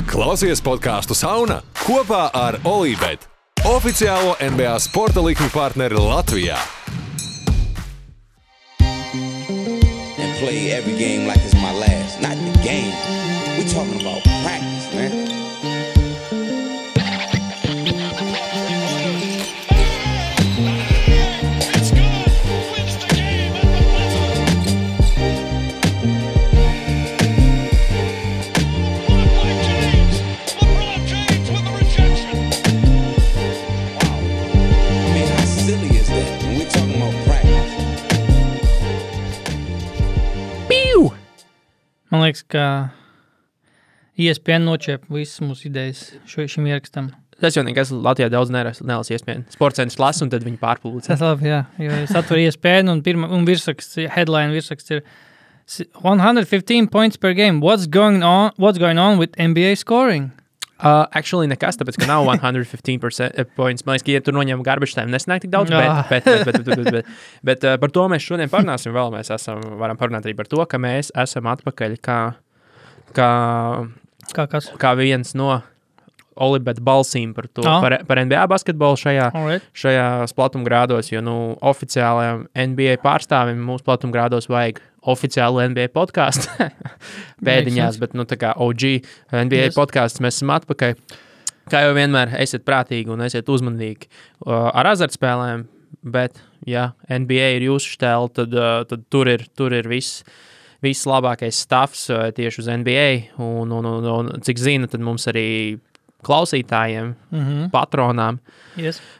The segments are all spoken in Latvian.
Klausies podcastu Sauna kopā ar Olībet, oficiālo NBA sporta likmi partneri Latvijā. And play every game like it's my last. Not the game. We're talking about practice, man. Man liekas, ka ESPN noķēpa visas mūsu idejas šim ierakstam. Tas jau nekas Latvijā daudz nelas ESPN. Sportcentrs lasa un tad viņi pārpūlīca. Tas labi, jā. Jo es atveru ESPN un virsraksts, headline virsraksts ir 115 points per game. What's going on with NBA scoring? Actually nekas, tāpēc, ka nav 115% points. Man liekas, ka, ja tur noņem garbage time, nesanāk tik daudz, bet par to mēs šodien parunāsim vēl. Mēs varam parunāt arī par to, ka mēs esam atpakaļ kā viens no Olibet balsīm par to, par NBA basketbolu šajā platumgrādos, jo, oficiālajam NBA pārstāvim mūsu platumgrādos vajag oficiālu NBA podcastu pēdiņās, bet, tā kā OG NBA podcasts mēs esam atpakaļ. Kā jau vienmēr, esiet prātīgi un esiet uzmanīgi ar azartspēlēm, bet, ja NBA ir jūsu štēl, tad tur ir viss labākais stuffs tieši uz NBA, un cik zina, tad mums arī klausītājiem, patronām,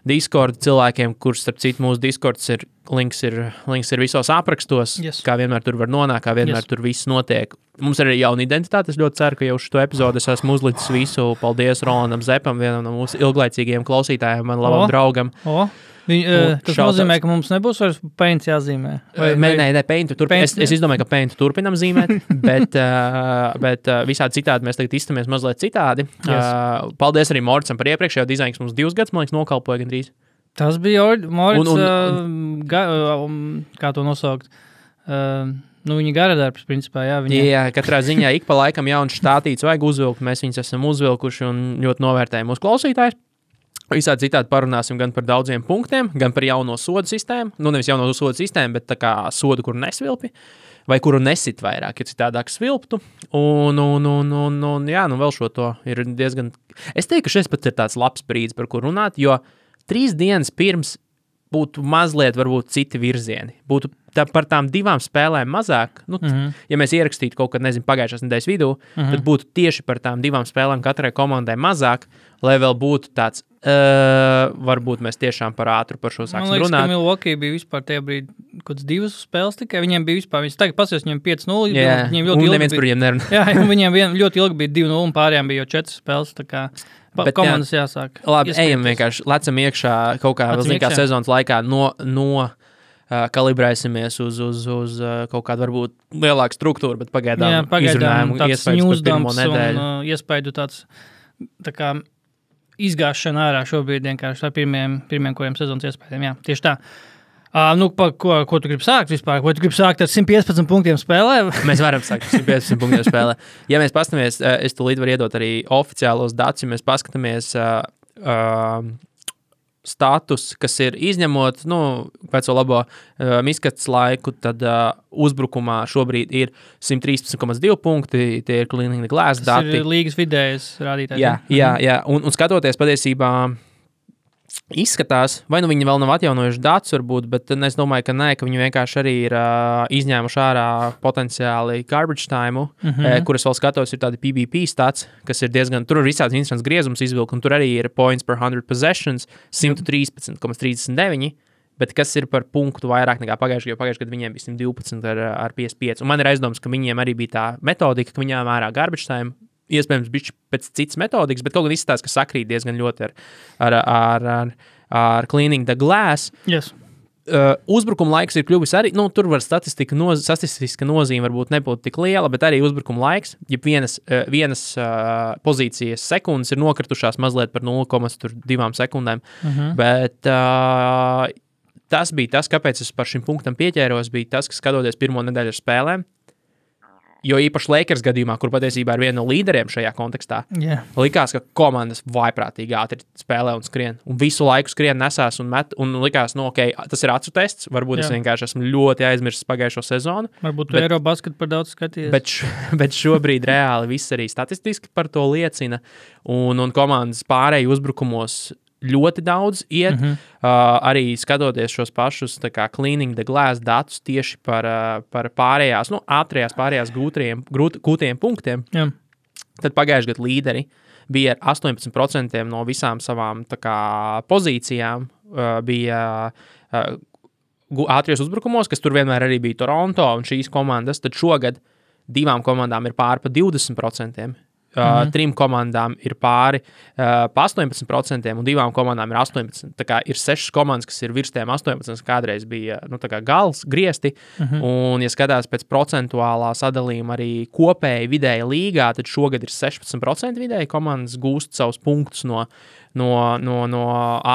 Discord cilvēkiem, kurš, starp citu, mūsu Discords links ir visos aprakstos, kā vienmēr tur var nonākt, kā vienmēr tur viss notiek. Mums ir arī jauna identitāte, es ļoti ceru, ka jau šo epizodu es esmu uzlicis visu. Paldies Rolandam Zepam, vienam no mūsu ilglaicīgajiem klausītājiem, man labam draugam. Tas nozīmē, ka mums nebūs vairs Paint jāzīmē? Nē, Paint turpinām. Es izdomāju, ka Paint turpinām zīmēt, bet visādi citādi mēs tagad izstamies mazliet citādi. Paldies arī Moricam par iepriekšējo dizainu, kas mums 2 gadus, man liekas, nokalpoja gandrīz. Tas bija Moric, kā to nosaukt? Viņa garadarbs, principā, jā. Jā, katrā ziņā ik pa laikam jauns štātīts vajag uzvilkt, mēs viņus esam uzvilkuši un ļoti novērtējam mūsu klausītājus. Visādi citādi parunāsim gan par daudziem punktiem, gan par jauno sodu sistēmu. Nevis jauno sodu sistēmu, bet tā kā sodu, kuru nesvilpi, vai kuru nesit vairāk, ja citādāk svilptu. Un vēl šo to ir diezgan... Es teiktu, ka šis pat ir tāds labs brīdis, par kur runāt, jo 3 dienas pirms būtu mazliet varbūt citi virzieni. Būtu par tām 2 spēlēm mazāk. Ja mēs ierakstītu kaut kad, pagājušās nedēļas vidū, tad būtu tieši par tām 2 spēlēm katrai komandai mazāk, lai vēl būtu tāds, varbūt mēs tiešām par ātru par šo sāksim runāt. Man liekas, ka Milwaukee bija vispār tajā brīdī kaut 2 spēles tikai. Viņiem bija vispār, tagad pasies, viņiem 5-0. Viņiem ļoti ilgi neviens par viņiem nerunā. Jā, viņiem ļoti ilgi bija 2-0 un pārējām bija jau 4 spēles, tā kā komandas jāsāk. Labi, ejam vienkārši, lecam iekšā kaut kā vēl kā sezonas laikā kalibrēsimies uz kaut kādu varbūt lielāku struktūru, bet pagaidām izrunājumu iespējas par pirmo nedēļu. Iespēju tāds tā kā izgāšana ārā šobrīd vienkārši ar pirmiem kuriem sezonas iespējām. Jā, tieši tā. Ko tu gribi sākt vispār? Vai tu gribi sākt ar 115 punktiem spēlē? Mēs varam sākt ar 115 punktiem spēlē. Ja mēs paskatāmies, es tūlīt varu iedot arī oficiālos datus, ja mēs paskatāmies status, kas ir izņemot, veco labo miskats laiku, tad uzbrukumā šobrīd ir 113,2 punkti, tie ir Cleaning the Glass dati. Tas ir līgas vidējais rādītājs. Jā. Un skatoties patiesībā izskatās, vai viņi vēl nav atjaunojuši datus varbūt, bet es domāju, ka nē, ka viņi vienkārši arī ir izņēmuši ārā potenciāli garbage time, kuras vēl skatos ir tādi PBP stats, kas ir diezgan, tur ir visāds interesants griezums izvilkt, un tur arī ir points per 100 possessions, 113,39, bet kas ir par punktu vairāk nekā pagājušajā gadā viņiem bija 112 ar 55. Un man ir aizdoms, ka viņiem arī bija tā metodika, ka viņām ārā garbage time, iespējams, bišķi pēc citas metodikas, bet kaut gan izstāsta, ka sakrīt diezgan ļoti ar Cleaning the Glass. Yes. Uzbrukuma laiks ir kļuvis arī, tur var statistiska nozīme varbūt nebūtu tik liela, bet arī uzbrukuma laiks, ja vienas pozīcijas sekundes ir nokritušās mazliet par 0,2 sekundēm, bet tas bija tas, kāpēc es par šim punktam pieķēros, bija tas, ka skatoties pirmo nedēļu ar spēlēm, Jo īpaši Lakers gadījumā, kur patiesībā ir viena no līderiem šajā kontekstā, likās, ka komandas vaiprātīgi ātri spēlē un skrien. Un visu laiku skrien nesās un met. Un likās, tas ir acu tests. Varbūt es vienkārši esmu ļoti aizmirsis pagājušo sezonu. Varbūt tu Eirobasketu par daudz skatījies. Bet šobrīd reāli viss arī statistiski par to liecina. Un komandas pārēji uzbrukumos ļoti daudz iet, arī skatoties šos pašus cleaning the glass datus tieši par pārējās, ātrajās pārējās gūtajiem punktiem. Jā. Tad pagājuši gadu līderi bija ar 18% no visām savām pozīcijām, bija ātrijos uzbrukumos, kas tur vienmēr arī bija Toronto un šīs komandas, tad šogad 2 komandām ir pāri pa 20%. 3 komandām ir pāri pa 18% un 2 komandām ir 18%. Tā kā ir 6 komandas, kas ir virs tiem 18%, kādreiz bija gals, griesti. Un, ja skatās pēc procentuālā sadalījuma arī kopēji vidēji līgā, tad šogad ir 16% vidēji komandas gūst savus punktus no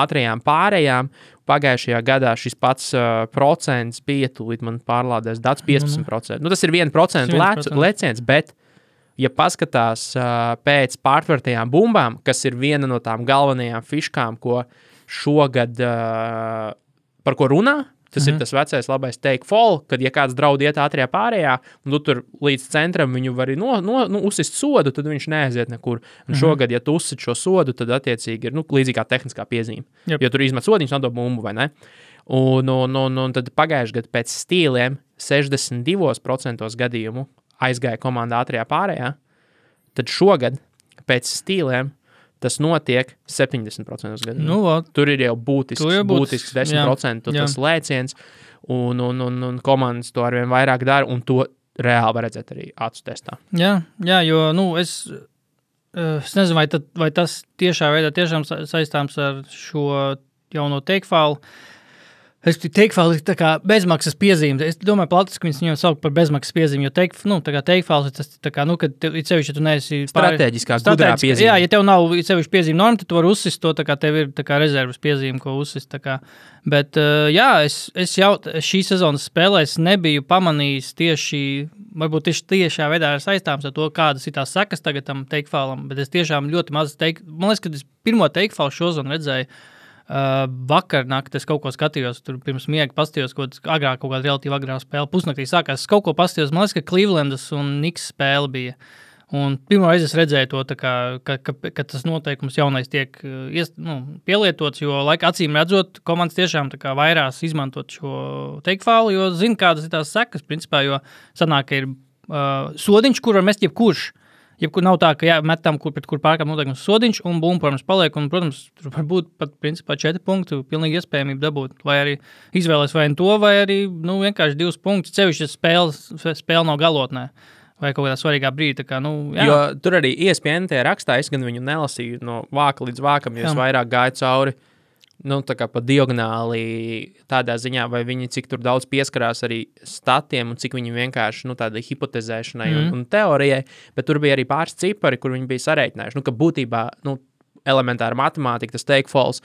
ātrajām pārējām. Pagājušajā gadā šis pats procents bija, tūlīt man pārlādēs dats 15%. Tas ir 1% leciens, bet ja paskatās pēc pārtvertajām bumbām, kas ir viena no tām galvenajām fiškām, ko šogad par ko runā, tas ir tas vecais labais take fall, kad ja kāds draud iet ātrajā pārējā, un tu tur līdz centram viņu vari uzsist sodu, tad viņš neaiziet nekur. Un šogad, ja tu uzsit šo sodu, tad attiecīgi ir līdzīgā tehniskā piezīme. Yep. Jo tur izmet sodiņus, nodod bumbu, vai ne? Un tad pagājuši gadu pēc stīliem 62% gadījumu aizgāja komandā ātrajā pārējā, tad šogad pēc stīliem tas notiek 70% gadījumā. Tur ir jau būtisks 10% tas lēciens, un komandas to arvien vairāk dara, un to reāli var redzēt arī acu testā. Jā, jo es nezinu, vai tas tiešā veidā tiešām saistāms ar šo jauno take-fallu. Es take-falls ir tā kā bezmaksas piezīme. Es domāju, Platis, ka viņu sauc par bezmaksas piezīmi, jo take-falls ir tas, kad tev sevišķi, ja tu neesi strateģiskā gudrā piezīme. Jā, ja tev nav sevišķi piezīme norma, tad tu vari uzsist to, tev ir rezervas piezīme, ko uzsist. Bet, es jau šī sezonas spēlēs nebiju pamanījis varbūt tiešā veidā ir saistāms ar to, kādas ir tās sekas tagad tam take-fallam, bet es tiešām ļoti maz man liekas, ka es pirmo take-fallu šozonu redzēju, vakar naktī es kaut ko skatījos, tur pirms miega pastījos, agrāk kaut kāda relatīvi agrā spēle, pusnaktī sākās, es kaut ko pastījos, man liekas, ka Clevelandas un Knicks spēle bija. Un pirmo reizi es redzēju to, ka tas noteikums jaunais tiek pielietots, jo acīm redzot, komandas tiešām vairās izmantot šo take-fallu, jo zina, kādas ir tās sekas, principā, jo sanāk, ka ir sodiņš, kur var mest jebkurš. Jebkur nav tā, ka metam, pret kur pārkāp noteikums sodiņš, un bumba, protams, paliek, un, protams, tur var būt pat, principā, 4 punktu, pilnīgi iespējamība dabūt, vai arī izvēlēs vai to, vai arī, vienkārši 2 punktus, sevišķi spēle nav galotnē, vai kaut kādā svarīgā brīdī, jā. Jo tur arī ESPN rakstā, es gan viņu nelasīju no vāka līdz vākam, jo es vairāk gāju cauri, pa diagonāli tādā ziņā, vai viņi cik tur daudz pieskarās arī statiem un cik viņi vienkārši, tādai hipotezēšanai un teorijai, bet tur bija arī pāris cipari, kur viņi bija sarēķinājuši, ka būtībā, elementāra matemātika, tas take-falls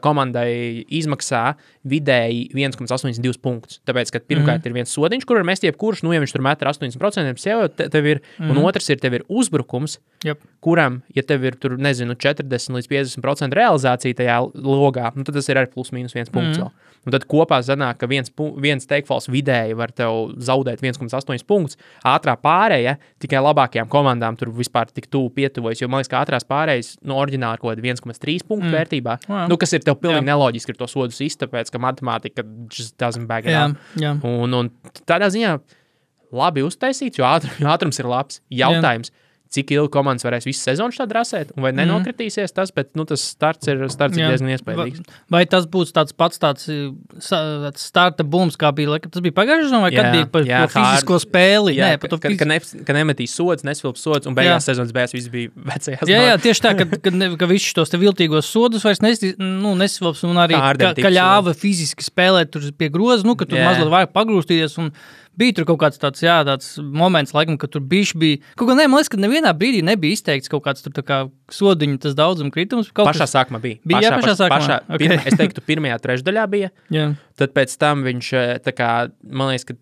komandai izmaksā vidēji 1,82 punktus. Tāpēc, ka pirmkārt ir viens sodiņš, kur var mest jebkurš, ja viņš tur met ar 80%, tev ir, un otrs ir, tev ir uzbrukums, kuram, ja tev ir tur, 40 līdz 50% realizācija tajā logā, tad tas ir arī plus mīnus 1 punkts vēl. Un tad kopā zanāk, ka viens take-falls vidēji var tev zaudēt 1,8 punktus. Ātrā pārēja tikai labākajām komandām tur vispār tik tuvu pietuvojas, jo man liekas, ka ātrās pārējas oriģināli kaut kāda 1,3 punktu vērtībā, kas ir tev pilnīgi neloģiski ir to sodu sist, tāpēc, ka matemātika just doesn't back it up. Un tādā ziņā labi uztaisīts, jo ātrums ir labs. Jautājums, cik ilgi komandas varēs visu sezonu šādi rasēt, un vai nenokritīsies tas, bet tas starts ir diezgan iespējīgs. Vai tas būs tāds starta bums, kā bija, tas bija pagājušajā sezonā, vai kad bija par fizisko spēli? Jā, ka nemetīs sods, nesvilps sods, un beigās sezonas beigās viss bija vecajās. Jā, tieši tā, ka visus tos te viltīgos sodus vairs nesvilps, un arī, ka ļāva fiziski spēlēt tur pie groza, ka tur mazliet vajag pagrūstīties, un bija tur kaut kāds tāds moments, laikam, ka tur bišķi bija. Kaut kā man liekas, ka nevienā brīdī nebija izteikts kaut kāds tur sodiņu tas daudzuma kritums. Pašā sākumā bija. Pašā sākumā? Es teiktu, pirmajā trešdaļā bija. Jā. Tad pēc tam viņš, man liekas, ka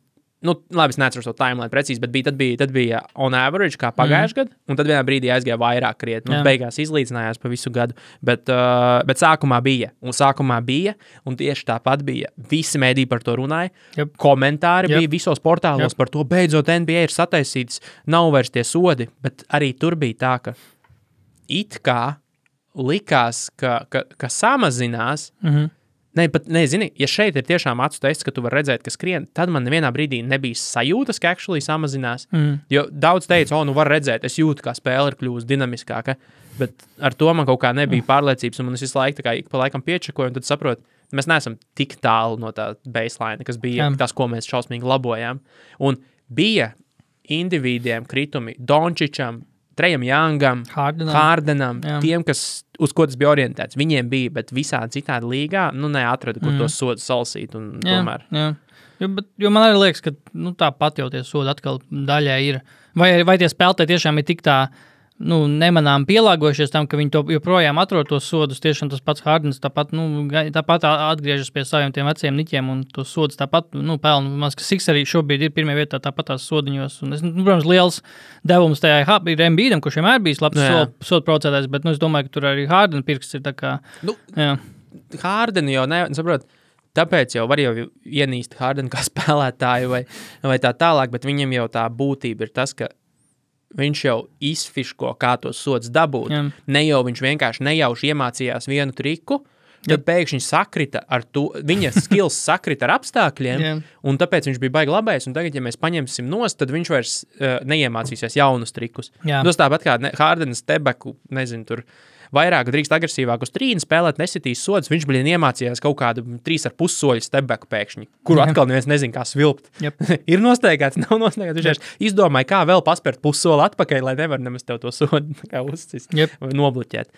labi, es neatceros to timeline precīzi, bet tad bija on average, kā pagājuši gadu, un tad vienā brīdī aizgāja vairāk krietni. Beigās izlīdzinājās pa visu gadu, bet sākumā bija, un tieši tāpat bija. Visi mēdī par to runāja, komentāri bija visos portālos par to, beidzot NBA ir sataisīts, nav vairs tie sodi, bet arī tur bija tā, ka it kā likās, ka samazinās. Zini, ja šeit ir tiešām acu tests, ka tu vari redzēt, ka skrien, tad man nevienā brīdī nebija sajūtas, ka actually samazinās. Jo daudz teica, var redzēt, es jūtu, kā spēle ir kļūst dinamiskāka, bet ar to man kaut kā nebija pārliecības, un es visu laiku tā kā ik pa laikam piečakoju, un tad saprotu, mēs neesam tik tālu no tā baseline, kas bija tas, ko mēs šausmīgi labojām. Un bija individiem kritumi Dončičam, Trejam Youngam, Hardenam, tiem, uz ko tas bija orientēts. Viņiem bija, bet visādi citādi līgā, neatrada, kur tos sodus salasīt, un tomēr. Jā. Jo man arī liekas, ka tāpat jau tie sodi atkal daļai ir. Vai tie spēlētāji tiešām ir tik tā, nemanām pielāgojušies tam, ka viņi to joprojām atrod tos sodus, tiešām tas pats Hardens tāpat atgriežas pie saviem tiem veciem niķiem, un tos sodus tāpat, pelna. Mans, ka Six arī šobrīd ir pirmajā vietā tāpat tās sodiņos, un protams, liels devums tajā ir Embiidam, kurš vienmēr bijis labs sodu procētājs, bet, es domāju, ka tur arī Harden pirksts ir tā kā, Harden jau saprot, tāpēc jau var jau ienīst Harden kā spēlētāju vai tā tālāk, bet viņam jau tā būtība ir tas, ka viņš jau izfiško, kā tos sods dabūt. Ne jau viņš vienkārši nejauši iemācījās vienu triku, tad pēkšņi sakrita ar to, viņa skills sakrita ar apstākļiem, un tāpēc viņš bija baigi labais, un tagad, ja mēs paņemsim nost, tad viņš vairs neiemācīsies jaunus trikus. Tas tāpat kā Hardenas tebeku, tur vairāk drīkst agresīvāk uz trīni spēlēt, nesitīs sods, viņš iemācījās kaut kādu 3,5 soļu stepbacku pēkšņi, kuru atkal neviens nezin, kā svilpt. Ir nosteigāts, nav nosteigāts, viņš izdomāja, kā vēl paspērt pussoli atpakaļ, lai nevar nemaz tev to sodu kā uzcist vai nobloķēt.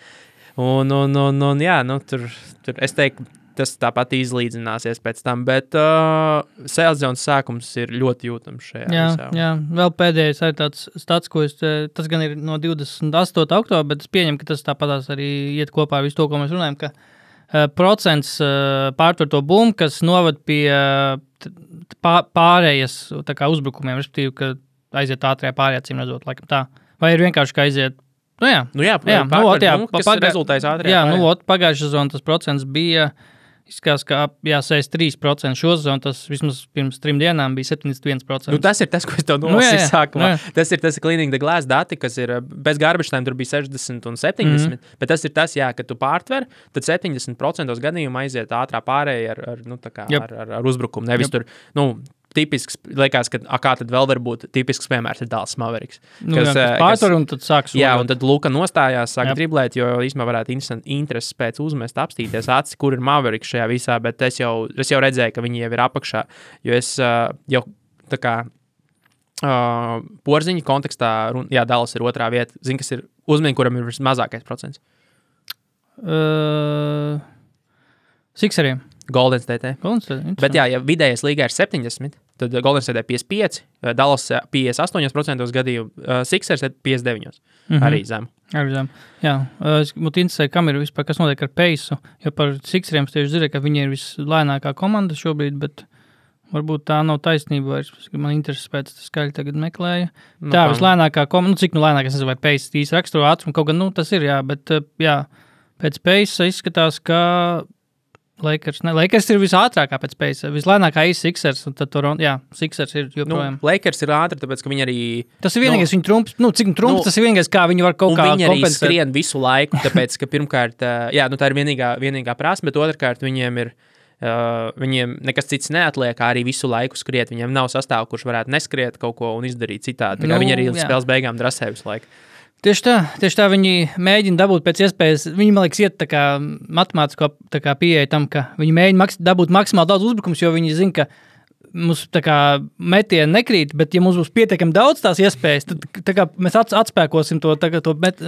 Tur es teiktu, tas tāpat izlīdzināsies pēc tam, bet sezons sākums ir ļoti jūtams šajā visā. Jā, vēl pēdējais arī tāds stats, ko tas gan ir no 28. oktobra, bet es pieņemu, ka tas tāpatās arī iet kopā ar visu to, ko mēs runājam, ka procents pārtver to bumbu, kas novad pie pārējas tā kā uzbrukumiem, respektīvi, ka aiziet ātrajā pārējā, cīm redzot, laikam tā. Vai ir vienkārši, ka aiziet kas rezultējas ātrajā pārējā. Pagājušā sezonā tas procents bija izskās, ka 63% šo sezonu, tas vismaz pirms 3 dienām bija 71%. Tas ir tas, ko es tev nolasīju sākumā. Tas ir Cleaning the Glass dati, kas ir bez garbage time, tur bija 60 un 70, bet tas ir tas, ka tu pārtver, tad 70% gadījumu aiziet ātrā pārēja ar uzbrukumu. Nevis tur, tipisks, liekas, ka kā tad vēl var būt tipisks piemērs ir Dallas Mavericks. Pārtver un tad sāk sodot. Jā, un tad Luka nostājās, sāk driblēt, jo īstenībā varētu intereses pēc uzmest, apstīties acis, kur ir Mavericks šajā visā, bet es jau redzēju, ka viņi jau ir apakšā, jo es jau tā kā porziņu kontekstā, Dallas ir otrā vieta, zini, kas ir uzmini, kuram ir mazākais procents? Sixeriem. Golden State. Bet ja vidējais līgā ir 70, tad Golden State 55, Dallas 58% gadījumu, Sixers 59, arī zem. Jā, es būtu interesēju, kam ir vispār, kas notiek ar Paceu, jo par Sixeriem tieši zinu, ka viņi ir vislēnākā komanda šobrīd, bet varbūt tā nav taisnība, man intereses pēc skaļi tagad meklēja. Vislēnākā komanda, cik lēnāk, es nezinu, vai Paceu īsti raksturo ātrumu, kaut gan, tas ir, bet pēc Paceu izskatās, ka Lakers ir visātrākā pēc Paceu, vislēnākā ir Sixers, un tad Sixers ir joprojām. Lakers ir ātri, tāpēc, ka viņi arī... Tas ir vienīgais viņa trumps, cik trumps, tas ir vienīgais, kā viņi var kaut kā kompensēt. Un viņi arī skrien visu laiku, tāpēc, ka pirmkārt, tā ir vienīgā prasme, bet otrkārt viņiem ir, viņiem nekas cits neatliek, arī visu laiku skriet, viņiem nav sastāvu, kurš varētu neskriet kaut ko un izdarīt citādi, viņi arī spēles beigām drasē visu laiku. Tieši tā viņi mēģina dabūt pēc iespējas, viņi, man liekas, iet tā kā matemātisko tā kā pieeja tam, ka viņi mēģina dabūt maksimāli daudz uzbrukums, jo viņi zina, ka mums tā kā metieni nekrīt, bet ja mums būs pietiekami daudz tās iespējas, tad tā kā mēs atspēkosim to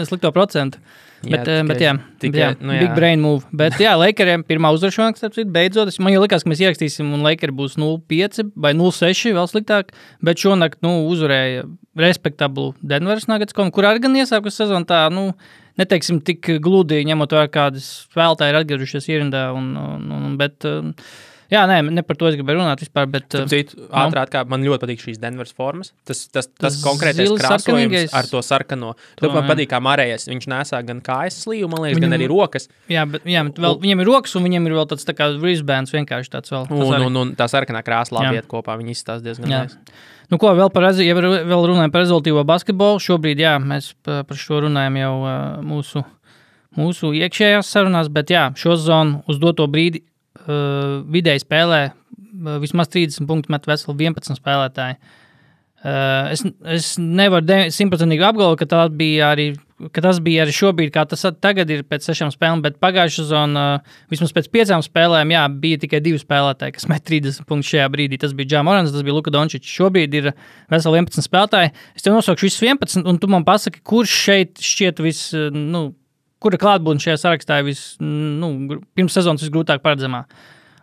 slikto procentu. Big brain move. Bet Lakeriem pirmā uzvaršana, kas beidzot, man jau likās, ka mēs ierakstīsim un Lakeri būs 0-5 vai 0-6 vēl sliktāk, bet šonakt, uzvarēja respektablu Denveras Nuggets, kur arī gan iesākus sezonu tā, neteiksim tik gludi, ņemot vērā kādas spēlētāji ir atgriežušies ierindā, bet Jā, ne par to es gribēju runāt vispār, bet... Ātrāk, kā man ļoti patīk šīs Denveras formas. Tas konkrētais krāsojums ar to sarkano. To man patīk kā Marējas. Viņš nesā gan kājas slīvu, man liekas, gan arī rokas. Jā, bet vēl, viņam ir rokas un viņam ir vēl tāds tā kā wristbands vienkārši tāds vēl. Un tā sarkanā krāsa labi iet kopā. Viņi izstās diezgan nice. Nu ko, vēl runājam par rezultīvo basketbolu. Šobrīd, jā, mēs par šo runājam jau mūsu iekšējās sarunās, bet jā, šo zonu uz doto brīdi vidēji spēlē vismaz 30 punktu met veseli 11 spēlētāji. Es nevaru 100% apgalvot, ka tas bija arī šobrīd, kā tas tagad ir pēc 6 spēlēm, bet pagājušā zona vismaz pēc 5 spēlēm, jā, bija tikai 2 spēlētāji, kas met 30 punktus šajā brīdī. Tas bija Ja Morants, tas bija Luka Dončičs. Šobrīd ir veseli 11 spēlētāji. Es tev nosaukšu visus 11, un tu man pasaki, kurš šeit šķiet kura klātbūtne šajā sarakstā ir pirms sezonas visgrūtāk paredzamā.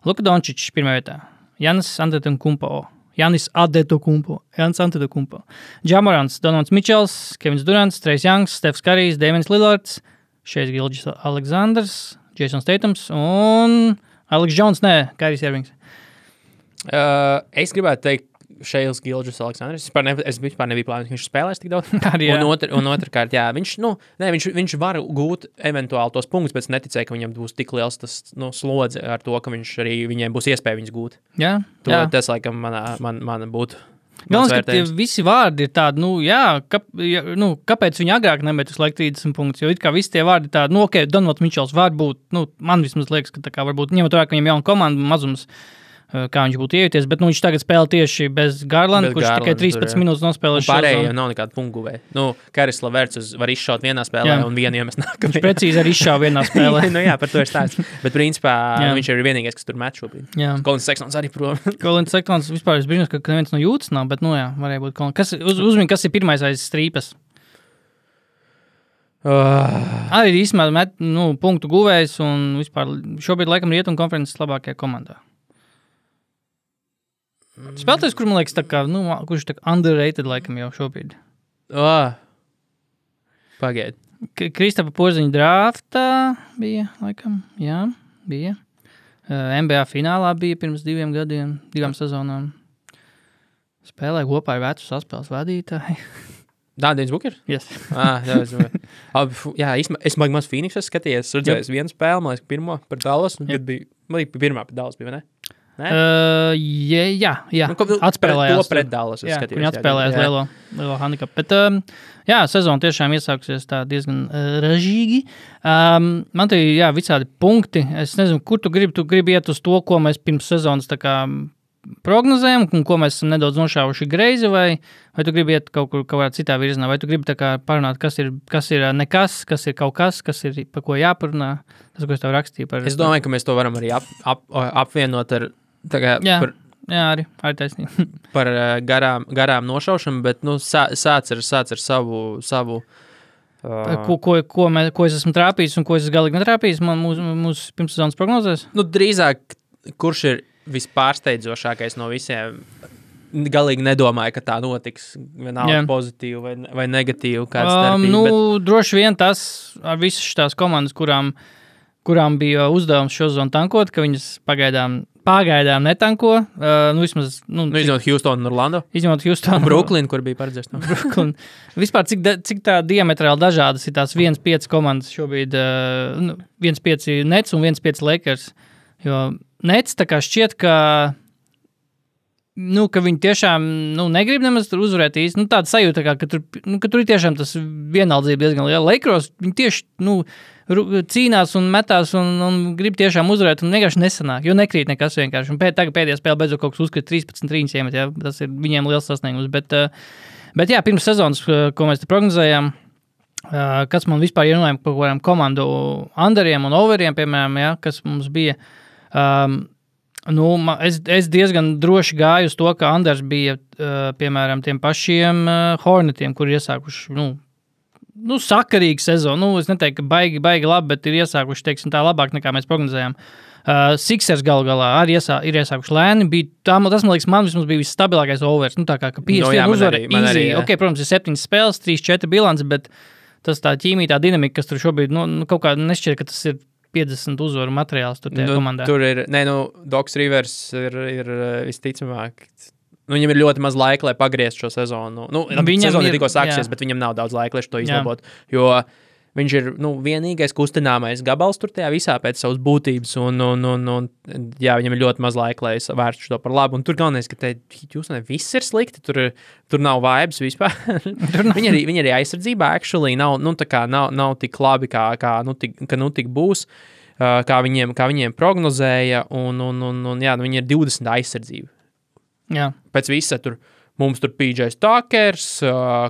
Luka Dončičs pirmā vietā, Jānis Antetokounmpo, Ja Morants, Donovans Mičels, Kevins Durants, Trejs Youngs, Stefs Karijs, Damians Lillards, Šejs Gilgeous Aleksandrs, Jasons Tatums un Alex Jones, Kairijs Irvings. Es gribētu teikt, Šejs Gilgeous Aleksandrs. Es vispār nebiju plānojis, ka viņš spēlēs tik daudz. Un otrkārt, jā, viņš var gūt eventuāli tos punktus, bet es neticēju, ka viņam būs tik liels tas slodze ar to, ka viņš arī viņiem būs iespēja viņus gūt. Jā. Tas, laikam, man būtu. Galvenais, ka tie visi vārdi ir tādi, kāpēc viņi agrāk nemet uz laiku 30 punktus, jo it kā visi tie vārdi tādi, Donovans Mičels var būt, man vismaz liekas, ka tā kā varbūt ņemot vērā, ka viņam jauna komanda mazums, kā viņš būtu iejuties, bet viņš tagad spēlē tieši bez Garlanda, kurš tikai 13 minūtes nospēlē šo zonu. Pārējie nav nekāda punktguvēja. Karis Leverts var izšaut vienā spēlē un vienu iemest nākamajā. Viņš precīzi arī izšāva vienā spēlē. Jā, par to ir stāsts. Bet principā viņš ir vienīgais, kas tur met šobrīd. Kolins Sextons arī prom. Kolins Sextons vispār es brīnos, ka neviens no jūtas nav, bet varēja būt Kolins. Uzmini, kas ir pirmais aiz strīpas? Arī īstenībā punktu guvējs un vispār šobrīd laikam Rietumu konferences labākajā komandā. Spēlētājs, kur man liekas, tā kā, kurš tā kā underrated laikam jau šobrīd. Pagaid. Kristapa Porziņa draftā bija, laikam, jā, bija. NBA finālā bija pirms 2 gadiem, 2 sezonām. Spēlēja kopā ar vecu saspēles vadītāju. Dāndienis Bukers? Yes. Jā, es maz Phoenixas skatījos, redzējis vienu spēli, man liekas, pirmo par Dallas, un kad bija, pirmā par Dallas bija, ne? Jā. Atspēlējās. To pret Dallas. Viņi atspēlējās lielo handikapu. Bet, sezona tiešām iesāksies tā diezgan ražīgi. Man te ir, visādi punkti. Es nezinu, kur tu gribi iet uz to, ko mēs pirms sezonas tā kā prognozējam, un ko mēs esam nedaudz nošāvuši greizi, vai tu gribi iet kaut kādā citā virzienā, vai tu gribi tā kā parunāt, kas ir nekas, kas ir kaut kas ir par ko jāparunā. Tas, ko es tev rakstīju par... Es domāju, ka mēs to varam arī apvienot ar arī taisnība. Par garām nošaušanu, bet sāc ar savu ko es esmu trāpījis un ko es galīgi netrāpījis mūsu pirmssezonas prognozēs? Drīzāk, kurš ir vispārsteidzošākais no visiem? Galīgi nedomāju, ka tā notiks vienalga pozitīvi vai negatīvi kāds starpība. Droši vien tas ar visas šitās komandas, kurām bija uzdevums šo zonu tankot, ka viņas pagaidām netanko. Izņemot Houstonu un Orlando. Izņemot Houstonu. Brooklyn, kur bija paredzēts. Brooklyn. Vispār, cik tā diametrāli dažādas ir tās 1-5 komandas šobrīd, 1-5 Nets un 1-5 Lakers. Jo Nets tā kā šķiet, ka viņi tiešām negrib nemaz tur uzvarēt īsti. Tāda sajūta, ka tur ir tiešām tas vienaldzība diezgan liela. Lakers, viņi tieši cīnās un metās un grib tiešām uzvarēt un vienkārši nesanāk, jo nekrīt nekas vienkārši. Un tagad pēdējā spēle beidzot kaut kas uzkrīt 13 trīņas iemet, tas ir viņiem liels sasniegums. Bet pirms sezonas, ko mēs te prognozējām, kas man vispār ierunājām par kādām komandu underiem un overiem, piemēram, kas mums bija, es diezgan droši gāju uz to, ka unders bija, piemēram, tiem pašiem Hornetiem, kuri iesākuši, sakarīga sezona. Es neteiktu, ka baigi labi, bet ir iesākuši, teiksim, tā labāk nekā mēs prognozējām. Sixers galu galā arī ir iesākuši lēni. Tas, man liekas, man vismaz bija visstabilākais overs. Tā kā 51 uzvara easy. Ok, protams, ir 7 spēles, 3-4 bilants, bet tas tā ķīmija, tā dinamika, kas tur šobrīd, kaut kā nešķiet, ka tas ir 50 uzvaru materiāls tur tajā komandā. Tur ir, Doks Rivers ir visticamāk, viņam ir ļoti maz laika, lai pagrieztu šo sezonu. Sezona ir tikko sāksies, bet viņam nav daudz laika, lai to izlabot, jo viņš ir vienīgais kustināmais gabals tur tajā visā pēc savas būtības, un viņam ir ļoti maz laika, lai vērstu to par labu. Un tur galvenais, ka Hjūstonai viss ir slikti, tur nav vibes vispār. Viņi arī aizsardzībā actually nav tik labi, kā tik būs, kā viņiem prognozēja, un viņi ir 20 aizsardzība. Jā. Pēc visa tur. Mums tur PJs Tuckers,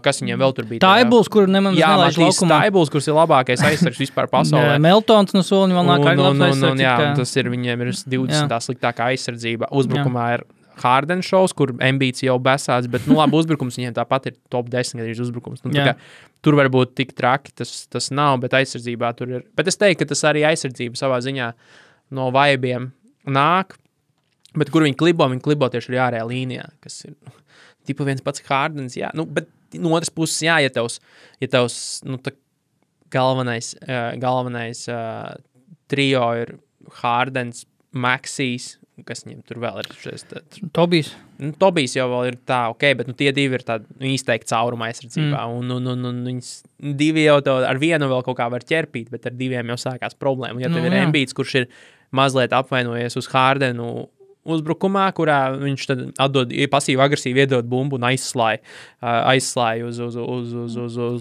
kas viņiem vēl tur bija. Taibuls, kur nemaz nelaiž laukumā. Taibuls, kurš ir labākais aizsargs vispār pasaulē. Meltons no soliņa vēl nāk labs aizsargs. Jā, tas ir, viņiem ir 20 sliktākā aizsardzība. Uzbrukumā ir Harden šovs, kur Embiids jau besāds, bet, labi, uzbrukums viņiem tāpat ir top 10 gadījums uzbrukums. Tur varbūt tik traki tas nav, bet aizsardzībā tur ir. Bet es teiktu, ka tas arī aizsardzība savā ziņā no vaibiem nāk, bet kur viņi klibo tieši arī ārējā līnijā, kas ir... Tipa viens pats Hardens, jā. Bet no otras puses, jā, ja tavs galvenais trio ir Hardens, Maxijs, kas viņiem tur vēl ir šis... Tobijs. Tobijs jau vēl ir tā, bet tie divi ir tādi izteikti cauruma aizsardzībā. Un viņas divi jau ar vienu vēl kaut kā var ķerpīt, bet ar diviem jau sākās problēma. Ja tev ir Embiids, kurš ir mazliet apvainojies uz Hardenu uzbrukumā, kurā viņš tad atdod pasīvi agresīvi iedod bumbu un aizslāja uz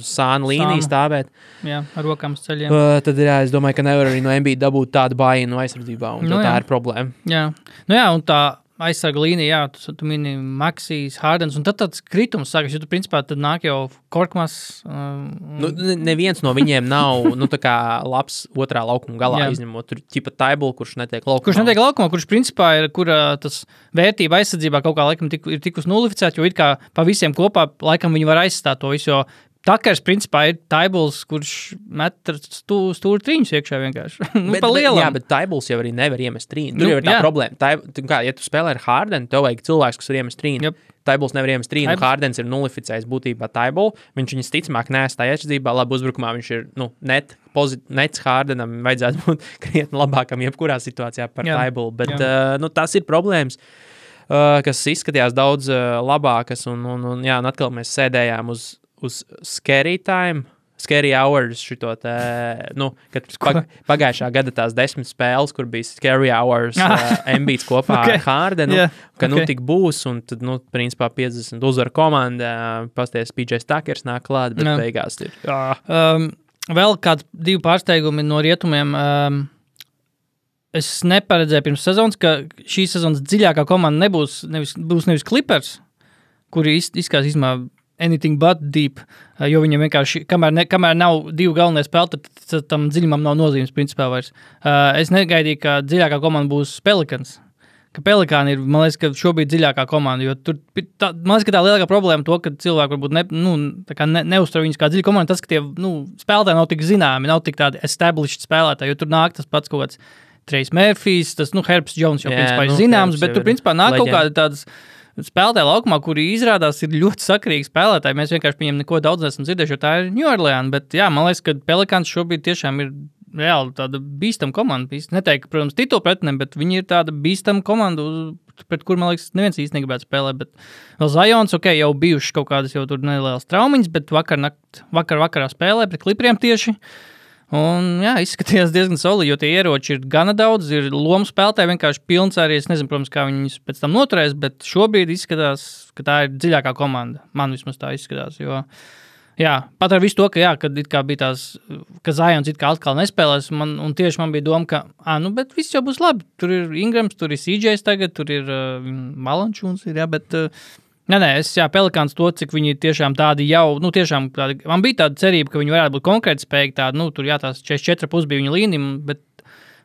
sānu līniju stāvēt. Jā, ar rokām uz ceļiem. Tad es domāju, ka nevar arī no Embiida dabūt tādu bājienu aizsardzībā, un tā ir problēma. Jā, un tā aizsarga līnija, tu mini Maxijs, Hardens, un tad tāds kritums sākas, jo tu principā tad nāk jau Korkmas. Neviens no viņiem nav, tā kā labs otrā laukuma galā izņemot. Tur ķipa Taibul, kurš netiek laukumā. Kurš principā ir, kur tas vērtība aizsardzībā kaut kā laikam ir tikus nulificēt, jo it kā pa visiem kopā laikam viņi var aizstāt to visu, jo Takers, principā, ir Taibuls, kurš met stūri trīņus iekšā vienkārši. Pa lielam. Jā, bet Taibuls jau arī nevar iemest trīnu. Tur jau ir tā problēma. Ja tu spēlē ar Hardenu, tev vajag cilvēks, kas var iemest trīnu. Yep. Taibuls nevar iemest trīnu, Hardens ir nulificējis būtībā Taibulu. Viņš viņas ticamāk neestāj aizsardzībā, labi uzbrukumā viņš ir, nets Hardenam vajadzētu būt krietni labākam jebkurā situācijā par Taibulu. Bet, tas ir problēmas, kas izskatījās daudz labākas, un atkal mēs sēdējām uz Scary Time, Scary Hours šito te, kad pagājušā gada tās 10 spēles, kur bija Scary Hours Embiids kopā ar Hardenu, tik būs, un tad, principā 50 uzvaru komanda, pasties PJs Tuckers nāk klāt, bet beigās ir. Vēl kāds 2 pārsteigumi no rietumiem. Es neparedzēju pirms sezonas, ka šī sezonas dziļākā komanda būs nevis Clippers, kuri izskatās anything but deep, jo viņam vienkārši, kamēr nav 2 galvenie spēlētāji, tad tam dziļumam nav nozīmes principā vairs. Es negaidīju, ka dziļākā komanda būs Pelicans. Ka Pelikāni ir, man liekas, ka šobrīd dziļākā komanda, jo tur, man liekas, ka tā lielākā problēma to, ka cilvēki varbūt neuztver viņus kā dziļa komanda, tas, ka tie, spēlētāji nav tik zināmi, nav tik tādi established spēlētāji, jo tur nāk tas pats kaut kāds Trejs Murphys, tas, Herbs Jones jau principā ir zināms, bet tur principā nāk kaut kādi tādas spēlētāji laukumā, kuri izrādās ir ļoti sakarīgi spēlētāji. Mēs vienkārši viņiem neko daudz nesam dzirdējuši, jo tā ir New Orleans, bet man liekas, ka Pelikāns šobrīd tiešām ir reāli tāda bīstama komanda. Neteiktu, protams, titulu pretinem, bet viņi ir tāda bīstama komanda, pret kur, man liekas, neviens īsti negribētu spēlēt, bet vēl Zions, jau bijuši kaut kādas jau tur nelielas traumiņas, bet vakarā spēlē pret Clipperiem tieši. Un, izskatījās diezgan solidi, jo tie ieroči ir gana daudz, ir lomu spēlētāji vienkārši pilns arī, es nezinu, protams, kā viņus pēc tam noturēs, bet šobrīd izskatās, ka tā ir dziļākā komanda. Man vismaz tā izskatās, jo, pat ar visu to, kad it kā bija tās, ka Zions it kā atkal nespēlēs, un tieši man bija doma, ka, bet viss jau būs labi, tur ir Ingrams, tur ir CJs tagad, tur ir Malančūns, bet... Pelikāns to, cik viņi tiešām tādi jau, tiešām tādi, man bija tāda cerība, ka viņi varētu būt konkrēti spējīgi tādi, tur tās 44,5 bija viņa līnija,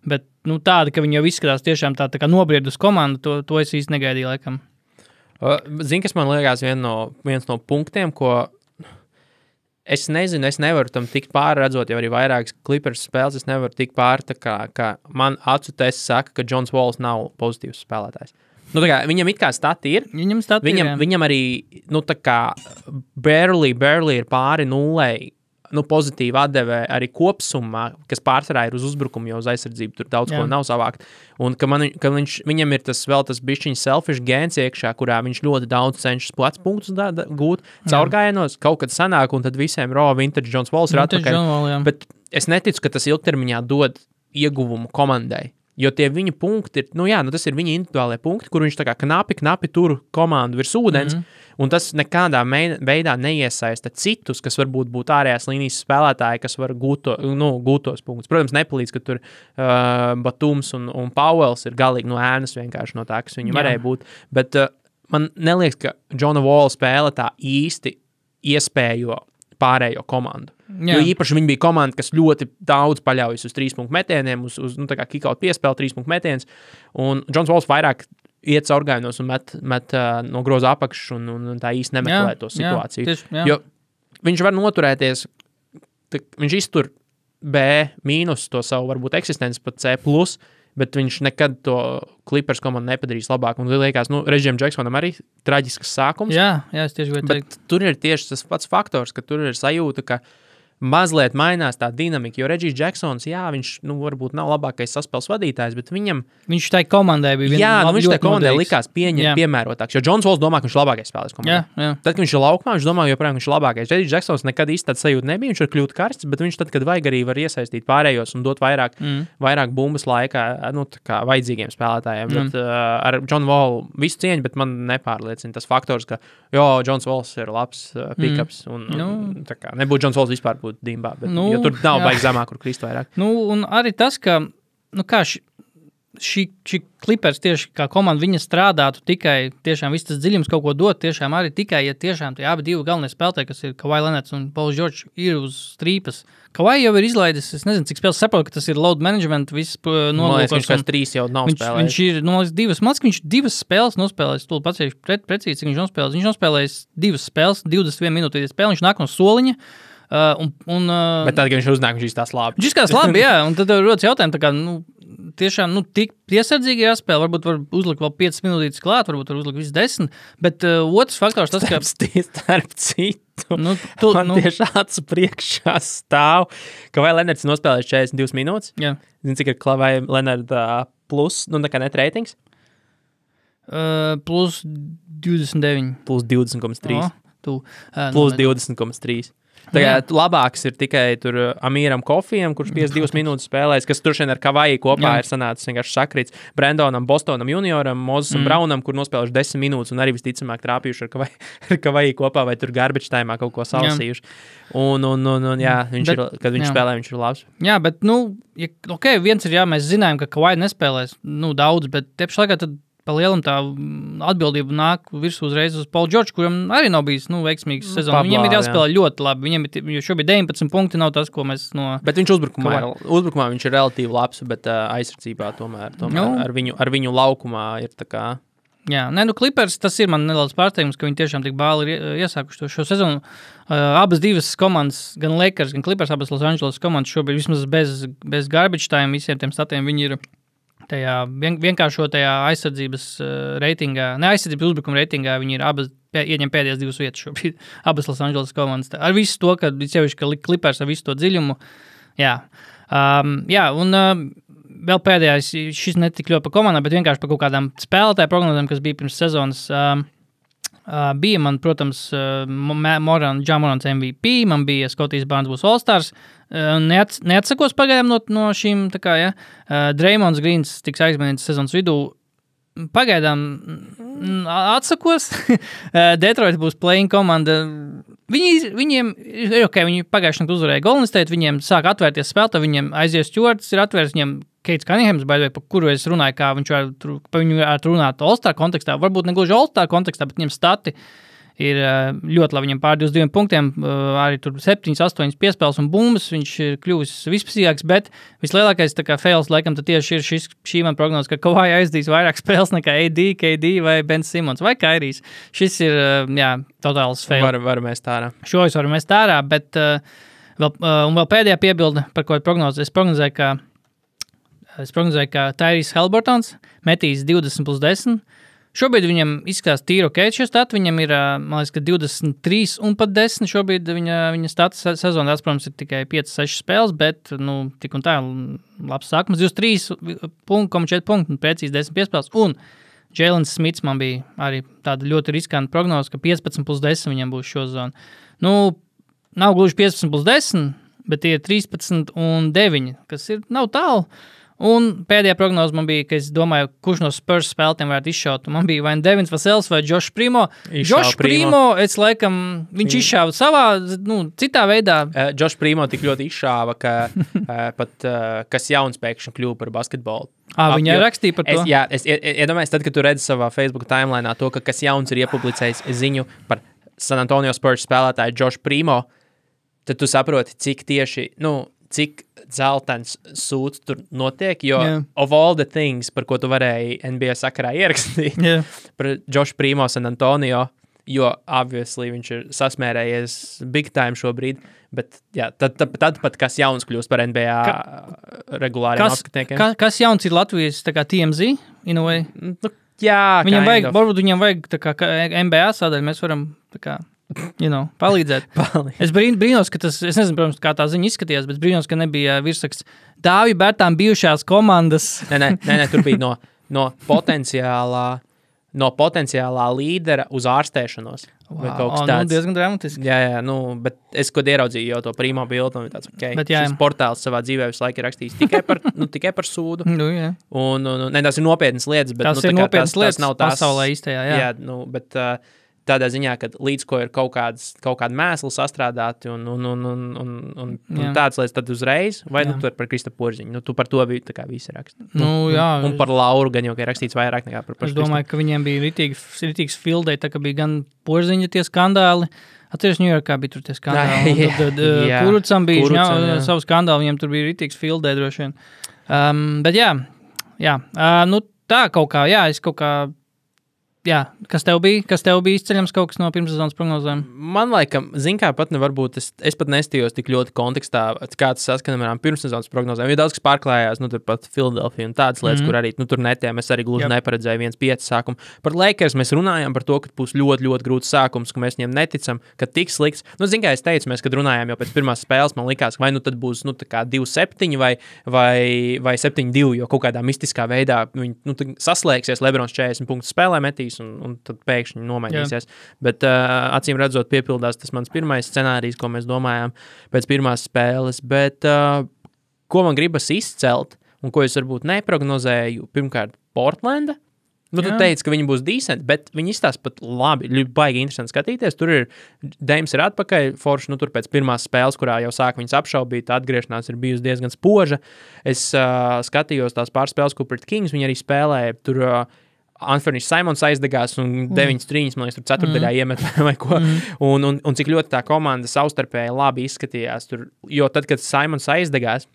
bet tāda, ka viņi jau izskatās tiešām tā kā nobriedus komanda, to es īsti negaidīju laikam. Zini, kas man liekas viens no punktiem, ko es nezinu, es nevaru tam tikt pāri, redzot jau arī vairākas Clippers spēles, es nevaru tikt pāri, ka man acu tests saka, ka Johns Walls nav pozitīvs spēlētājs. Viņam it kā stati ir. Viņam arī, barely ir pāri 0 pozitīvi atdeve arī kopsumā, kas pārsvarā ir uz uzbrukumu, jo uz aizsardzību tur daudz ko nav savākt. Un ka viņam ir tas bišķiņš selfish gēns iekšā, kurā viņš ļoti daudz cenšas plats punktus gūt caurgājienos, kaut kad sanāk, un tad visiem vintage Johns Walls ir atpakaļ. Bet es neticu, ka tas ilgtermiņā dod ieguvumu komandai. Jo tie viņa punkti ir, tas ir viņa individuālie punkti, kur viņš tā kā knapi tur komandu virs ūdens, un tas nekādā veidā neiesaista citus, kas varbūt būtu ārējās līnijas spēlētāji, kas var gūt tos punktus. Protams, nepalīdz, ka tur Batums un Powells ir galīgi no ēnas vienkārši no tā, kas viņi varēja būt. Bet man neliekas, ka Johna Walla spēle tā īsti iespējo pārējo komandu. Jo īpaši viņi bija komanda, kas ļoti daudz paļaujas uz 3-punktu metieniem, uz tā kā kick-out piespēli 3-punktu metiens, un Johns Walls vairāk iet caurgājienos un met no groza apakšas un tā īsti nemeklē to situāciju. Jo viņš var noturēties, viņš iztur B mīnus to savu varbūt eksistenci pat C+, bet viņš nekad to Clippers komandu nepadarīs labāk. Un liekas, Reģijam Džeksonam arī traģisks sākums. Jā, es tieši gribēju teikt. Bet tur ir tieši tas pats faktors, ka tur ir sajūta, ka mazliet mainās tā dinamika, jo Reģijs Džeksons, viņš varbūt nav labākais saspēles vadītājs, bet viņš tai komandai bija viņš tai komandai likās piemērotāks, jo Johns Walls domā, ka viņš ir labākais spēlēs komandā. Tad, kad viņš ir laukumā, viņš domā, joprojām viņš ir labākais. Reģijs Džeksons nekad īsti tāds sajūta nebija, viņš var kļūt karsts, bet viņš tad, kad vajag arī var iesaistīt pārējos un dot vairāk bumbas laikā, tā kā vajadzīgiem spēlētājiem. Bet ar John Wall visu cieņu, bet man nepārliecina tas faktors, ka Johns Walls ir labs pick-ups un tā kā nebūtu Johns Walls vispār dimbā, bet, jo tur nav baigi zemāk, kur krist vairāk. Un arī tas, ka šī Clippers tieši kā komanda viņa strādātu tikai, tiešām viss tas dziļums kaut ko dot, tiešām arī tikai, ja tiešām tie abi divi galvenie spēlētāji, kas ir Kawhi Leonards un Pauls George, ir uz strīpas. Kawhi jau ir izlaidis, es nezinu, cik spēles saprotu, ka tas ir load management, viss nolūkos. Viņš kāds 3 jau nav spēlējis. Viņš ir, viņš 2 spēles nospēlējis, tu paceļš precīzi, cik viņš nospēlējis. Viņš nospēlējis 2 spēles, 21 minūtīties spēle, viņš nāk no soliņa. Bet tad, kad viņš uznāk, viņš izskatās labi. Viņš izskatās labi, jā, un tad rodas jautājumi, tā kā, tiešām, tik piesardzīgi jāspēlē, varbūt var uzlikt vēl 5 minūtītes klāt, varbūt var uzlikt visu 10, bet otrs faktors tas, ka... Starp citu, man tieši acu priekšā stāv, ka vai Leonards nospēlēs 42 minūtes? Jā. Zini, cik ir Kawhi Leonard plus, nekā net ratings? Plus 29. Plus 20,3. Plus 20,3. Tagad labāks ir tikai tur Amīram Kofijam, kurš 52 minūtes spēlēs, kas tur šeit ar Kawhi kopā ir sanācis vienkārši sakrīts. Brandonam, Bostonam junioram, Mozesam Brownam, kur nospēlējuši 10 minūtes un arī visticamāk trāpījuši ar Kawhi kopā vai tur garbage time'ā kaut ko salasījuši. Un kad viņš spēlē, viņš ir labs. Jā, bet, viens ir, mēs zinājām, ka Kawhi nespēlēs, daudz, bet tieši laikā tad pa lielam tā atbildība nāk virsū uzreiz uz Paul George, kuram arī nav bijis veiksmīgs sezons. Viņam ir jāspēlē ļoti labi. Jo šobrīd 19 punkti nav tas, ko mēs no... Bet viņš uzbrukumā viņš ir relatīvi labs, bet aizsardzībā tomēr ar viņu laukumā ir tā kā... Jā, Clippers, tas ir man nedaudz pārsteigums, ka viņi tiešām tik bāli ir iesākuši šo sezonu. Abas divas komandas, gan Lakers, gan Clippers, abas Los Angeles komandas šobrīd vismaz bez garbage time visiem tiem statiem viņi ir tajā vienkāršotajā aizsardzības reitingā, ne aizsardzības uzbrukuma reitingā, viņi ir abas ieņem pēdējās 2 vietas šobrīd, abas Los Angeles komandas. Ar visu to, ka Clippers ar visu to dziļumu, un vēl pēdējais, šis netik ļoti pa komandām, bet vienkārši pa kaut kādām spēlētāju prognozēm, kas bija pirms sezonas, bija man, protams, Morans MVP, man bija Scotties Barnes būs All-Stars, neatsakos pagaidām no šīm, tā kā, Draymonds Greens tiks aizmanīts sezonas vidū, pagaidām atsakos, Detroit būs playing komanda, viņiem ir ok, viņi pagājušajā naktī uzvarēja Golden State, viņiem sāk atvērties spēlētāji, viņiem aizies Stewarts ir atvērts, viņiem Keits Cunninghams, par kuru es runāju, kā viņš varētu runāt All-Star kontekstā, varbūt ne gluži All-Star kontekstā, bet viņiem stati ir ļoti labi, viņam pār 22 punktiem, arī tur 7, 8 piespēles un bumbas, viņš ir kļuvis vispasīgāks, bet vislielākais tā kā fails, laikam, tad tieši ir šī man prognoze, ka Kawhi aizdīs vairāk spēles nekā AD, KD vai Ben Simmons vai Kairijs. Šis ir, totāls fail. Varam mest ārā. Šo es varu mest ārā, bet vēl pēdējā piebilde, par ko prognoze. Es prognozēju, ka Tyrese Haliburtons metīs 20+10. Šobrīd viņam izskatās tīri ok, šie stati. Viņam ir, man liekas, ka 23 un pat 10 šobrīd viņa stati sezonā, protams, ir tikai 5-6 spēles, bet, tik un tā labs sākums. 23,4 punkti un precīzi 10 piespēles. Un Jēlens Smits man bija arī tāda ļoti riskanta prognoze, ka 15+10 viņam būs šo zonu. Nav gluži 15+10, bet tie ir 13 un 9, kas nav tālu. Un pēdējā prognoze man bija, ka es domāju, kurš no Spurs spēlētiem varētu izšaut. Man bija vai Devins Vasels vai Josh Primo. Josh Primo, es laikam, viņš izšāva savā, citā veidā. Josh Primo tik ļoti izšāva, ka pat kas jauns pēkšņi kļuva par basketbolu. Viņa rakstīja par to? Es iedomājos, tad, kad tu redzi savā Facebook timelineā to, ka kas jauns ir iepublicējis ziņu par San Antonio Spurs spēlētāju Josh Primo, tad tu saproti, cik tieši, cik dzeltens sūds tur notiek, jo of all the things, par ko tu varēji NBA sakarā ierakstīt, par Josh Primo San Antonio, jo obviously viņš ir sasmērējies big time šobrīd, bet tad pat kas jauns kļūst par NBA regulāriem apskatniekiem. Kas jauns ir Latvijas tā kā TMZ, in a way? Viņam vajag, varbūt viņam vajag tā kā NBA sadaļa, mēs varam tā kā palīdzēt. Es brīnos, ka tas, es nezinu, protams, kā tā ziņa izskatījās, bet brīnos, ka nebija virsraksts Dāvi Bērtām bijušās komandas. Nē, tur bija no potenciālā līdera uz ārstēšanos. Vai kaut kas tāds. Diezgan dramatiski. Jā, bet es, kad ieraudzīju jau to Primo bildu, un tāds, šis portāls savā dzīvē visu laiku ir rakstījis tikai par sūdu. Un tās ir nopietnas lietas, bet tas ir nopietnas lietas nav tās pasaulē īstajā, jā. Bet tādā ziņā, ka līdz ko ir kaut kāda mēsla sastrādāti un tādas lietas tad uzreiz, vai tur par Krista Porziņu. Tu par to tā kā visi raksti. Un par Lauru gan jau, ka ir rakstīts vairāk nekā par Es domāju, ka viņiem bija ritīgs fildei, tā ka bija gan Porziņa tie skandāli. Atceries, Ņujorkā bija tur tie skandāli. Kurucam bija savu skandālu, viņiem tur bija ritīgs fildei droši vien. Bet tā kaut kā, es kaut kā kas tev bija izceļams kaut kas no pirmssezonas prognozēm? Man laikam, kā pat nevar būt, es pat nestījos tik ļoti kontekstā, kā tas saskanam ar pirmssezonas prognozēm. Jo daudz, kas pārklājās, tur pat Philadelphia un tādas lietas, kur arī, tur netiem, es arī gluži neparedzēju 1-5 sākumu. Par Lakers mēs runājām par to, ka būs ļoti, ļoti grūts sākums, ka mēs viņiem neticam, ka tik slikts. Kā es teicu, mēs, kad runājām jau pēc pirmās spēles, man likās, vai tad būs, tā kā 2-7 vai 7-2, jo kaut kādā mistiskā veidā viņi, saslēgsies, Lebrons 40 punktus spēlē metīs, un tad pēkšņi nomainīsies. Bet acīm redzot piepildās tas mans pirmais scenārijs, ko mēs domājām pēc pirmās spēles. Bet ko man gribas izcelt, un ko es varbūt neprognozēju, pirmkārt Portlanda. Tu teici, ka viņi būs decent, bet viņi izstās pat labi, baigi interesanti skatīties. Tur ir, Deims ir atpakaļ, forši, tur pēc pirmās spēles, kurā jau sāk viņas apšaubīt, atgriešanās ir bijusi diezgan spoža. Es skatījos tās pārspēles, ko pret Kings viņi arī spēlēja, tur Anthony Simons aizdegās un 9 trīņas, man liekas, tur ceturtdaļā iemet vai ko. Un cik ļoti tā komanda savstarpēji labi izskatījās. Jo tad, kad Simons aizdegās,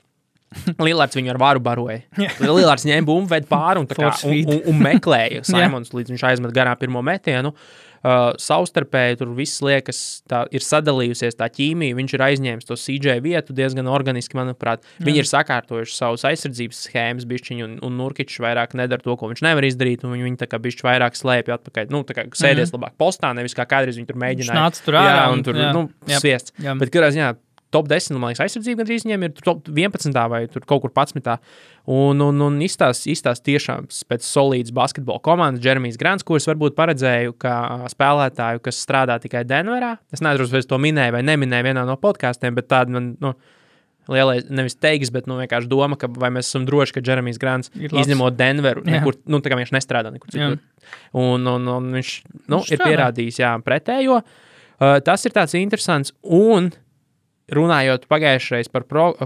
Lillards viņu ar varu baroja. Lillards ņēma bumbu, ved pāri un meklēja Simons, līdz viņš aizmet garā pirmo metienu. Savstarpēji tur viss liekas, tā ir sadalījusies tā ķīmija, viņš ir aizņēmis to CJ vietu diezgan organiski, manuprāt. Viņi ir sakārtojuši savus aizsardzības schēmas bišķiņu, un Nurkičs vairāk nedara to, ko viņš nevar izdarīt, un viņi tā kā bišķi vairāk slēpja atpakaļ. Tā kā sēdies labāk postā, nevis kā kādreiz viņi tur mēģināja. Nāc tur ārā. Un tur, sviests. Bet kādā ziņā top 10, man liekas, aizsardzība gandrīz viņiem ir top 11. vai tur kaut kur 11. Un izstās tiešām pēc solīdas basketbola komandas Jeremijs Grants, kurus varbūt paredzēju kā spēlētāju, kas strādā tikai Denverā. Es nezinu, vai es to minēju vai neminēju vienā no podkāstiem, bet tāda man, lielais, nevis teiks, bet vienkārši doma, ka vai mēs esam droši, ka Jeremijs Grants izņemot Denveru, nekur, tā kā viņš nestrādā nekur citur. Un viņš ir pierādījis, pretējo. Tas ir tāds interesants un runājot pagājušreiz par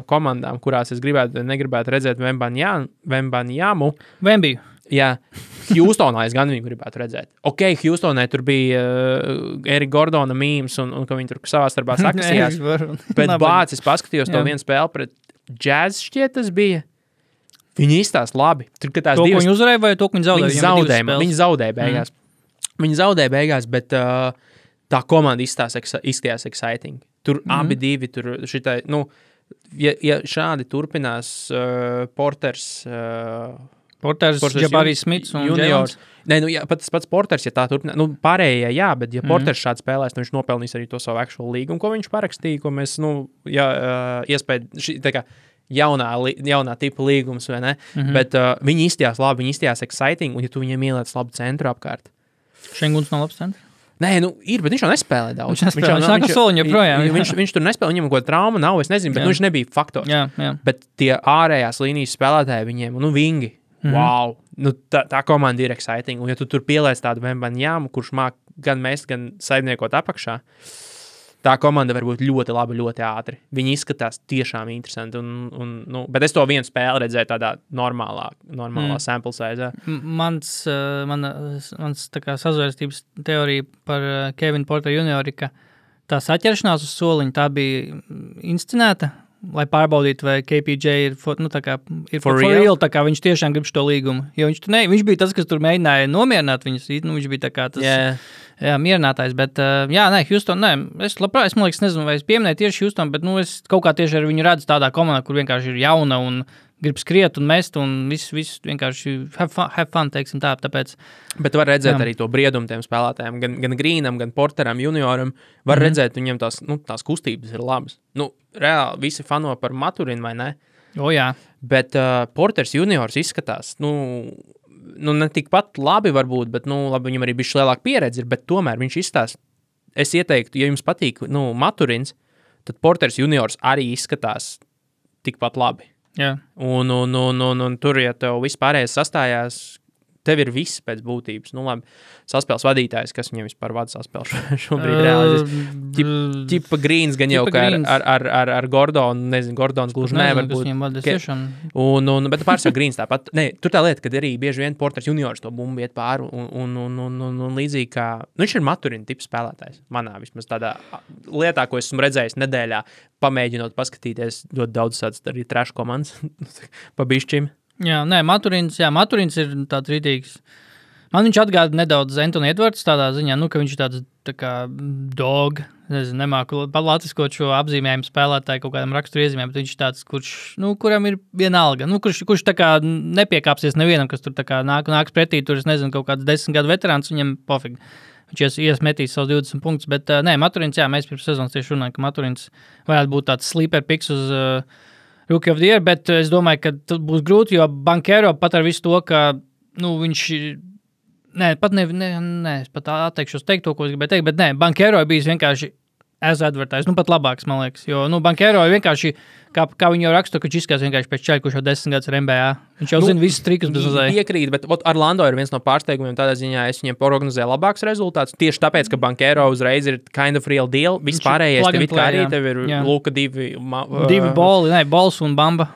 komandām, kurās es negribētu redzēt Wembanyamu. Wembiju. Jā, Houstonā es gan viņu gribētu redzēt. Houstonē tur bija Erika Gordona mīms un ka viņi tur savā starpā sakasījās. Bet es paskatījos to vienu spēli pret Jazz šķiet tas bija. Viņi izstās labi. Tur, to, ko viņi uzvarēja vai to, ko viņi zaudēja? Viņi zaudēja beigās. Viņi zaudēja beigās, bet tā komanda izskatījās exciting. Tur abi divi, tur šitai, ja šādi turpinās Porters, Porters, Jabarijs Smits un juniors. Nē, nu, pats Porters, ja tā turpina, pārējie, jā, bet ja Porters šāds spēlēs, viņš nopelnīs arī to savu actual līgumu, ko viņš parakstīja, ko mēs, iespēja, tā kā jaunā tipa līgums, vai ne? Bet viņi izstījās labi, viņi izstījās exciting, un ja tu viņiem ieliec labu centru apkārt. Šenguns nav labs centrs? Nē, ir, bet viņš jau nespēlē daudz. Viņš tur nespēlē, viņam kaut trauma nav, es nezinu, bet viņš nebija faktors. Jā. Bet tie ārējās līnijas spēlētāji viņiem, vingi, wow, tā komanda ir exciting. Un ja tu tur pieliec tādu Vembanjāmu, kurš māk gan mest, gan saimniekot apakšā, tā komanda var būt ļoti laba, ļoti ātri. Viņi izskatās tiešām interesanti. Bet es to vienu spēli redzēju tādā normālā sample size. Mans tā kā sazvērstības teorija par Kevinu Porteru juniori, ka tā saķeršanās uz soliņa, tā bija inscenēta, lai pārbaudītu, vai KPJ ir for real, tā kā viņš tiešām grib šo līgumu. Jo viņš bija tas, kas tur mēģināja nomierināt viņus. Viņš bija tā kā tas mierinātājs, bet Houston, es labprāt, man liekas, nezinu, vai es pieminēju tieši Houston, bet es kaut kā tieši ar viņu redzu tādā komandā, kur vienkārši ir jauna un grib skriet un mest un viss vienkārši have fun, teiksim tā, tāpēc. Bet var redzēt arī to briedumu tiem spēlētājiem, gan Greenam, gan Porteram, junioram, var redzēt, viņiem tās kustības ir labas. Reāli visi fano par Maturinu, vai ne? Jā. Bet Porters juniors izskatās, ne tikpat labi varbūt, bet, labi, viņam arī bišķi lielāka pieredze ir, bet tomēr viņš izskatās, es ieteiktu, ja jums patīk, Maturins, tad Porters juniors arī izskatās tikpat labi. Jā. Un tur, ja tev vispārējais sastājās, tev ir viss pēc būtības. Labi, saspēles vadītājs, kas viņam vispār vada saspēles šobrīd realizēs. Ķipa Grīns gan jau kā ar Gordonu, nezinu, Gordons gluži nevar būt. Bet pārsvarā Grīns tāpat. Nē, tur tā lieta, kad arī bieži vien Porters juniors to bumbu iet pāri un līdzīgi kā, viņš ir Maturina tips spēlētājs. Manā vismaz tādā lietā, ko esmu redzējis nedēļā, pamēģinot paskatīties ļoti daudz tāds arī trash komandas pa bišķim. Jā, Maturins ir tāds rītīgs. Man viņš atgāda nedaudz Antoni Edvards tādā ziņā, ka viņš ir tāds tā kā dog, nezinu, nemāku latviskot šo apzīmējumu spēlētāju kaut kādam raksturu iezīmēm, bet viņš ir tāds, kuram ir vienalga, kurš tā kā nepiekāpsies nevienam, kas tur tā kā nāks pretī, tur es nezinu, kaut kāds 10 gadu veterāns, viņam pofīgi. Viņš iesmetīs savus 20 punktus, bet Maturins, mēs pirms sezonas tieši runājam, ka Maturins varētu būt tāds sleeper picks uz Rookie of the Year, bet es domāju, ka būs grūti, jo Banchero pat ar visu to, ka, viņš, es pat atteikšos teikt to, ko es gribēju teikt, bet Banchero ir bijis vienkārši as advertised, pat labāks, man liekas, jo, Banchero ir vienkārši, kā viņi jau raksta, ka viņš izskatās vienkārši pēc čaļa, kurš jau 10 gadus ir NBA. Viņš jau zina visus trikus bez uzēja. Piekrīt, bet Orlando ir viens no pārsteigumiem, tādā ziņā es viņiem prognozēju labāks rezultāts, tieši tāpēc, ka Banchero uzreiz ir kind of real deal, vispārējais tev it kā arī, tev ir Luka divi boli, bols un Bamba.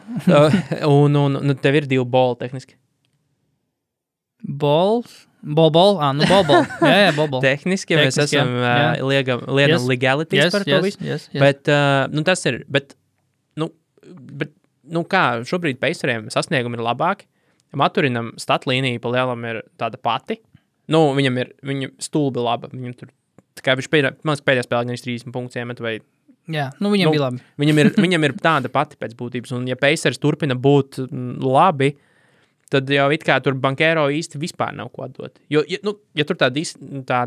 un tev ir 2 boli tehniski. Bol. Jā, bol. Tehniski mēs esam liekam legalities par to visu. Yes. Bet, tas ir, bet, kā šobrīd Paceriem sasniegumi ir labāki. Maturinam statlīnija pa lielam ir tāda pati. Viņa stulbi laba. Viņam tur, tā kā viņš pēdējā spēlē gan 30 punktus iemet vai... Jā, viņam bija labi. Viņam ir tāda pati pēc būtības. Un ja Pacers turpina būt labi, tad jau it kā tur Banchero īsti vispār nav ko atdot. Jo, ja tur tā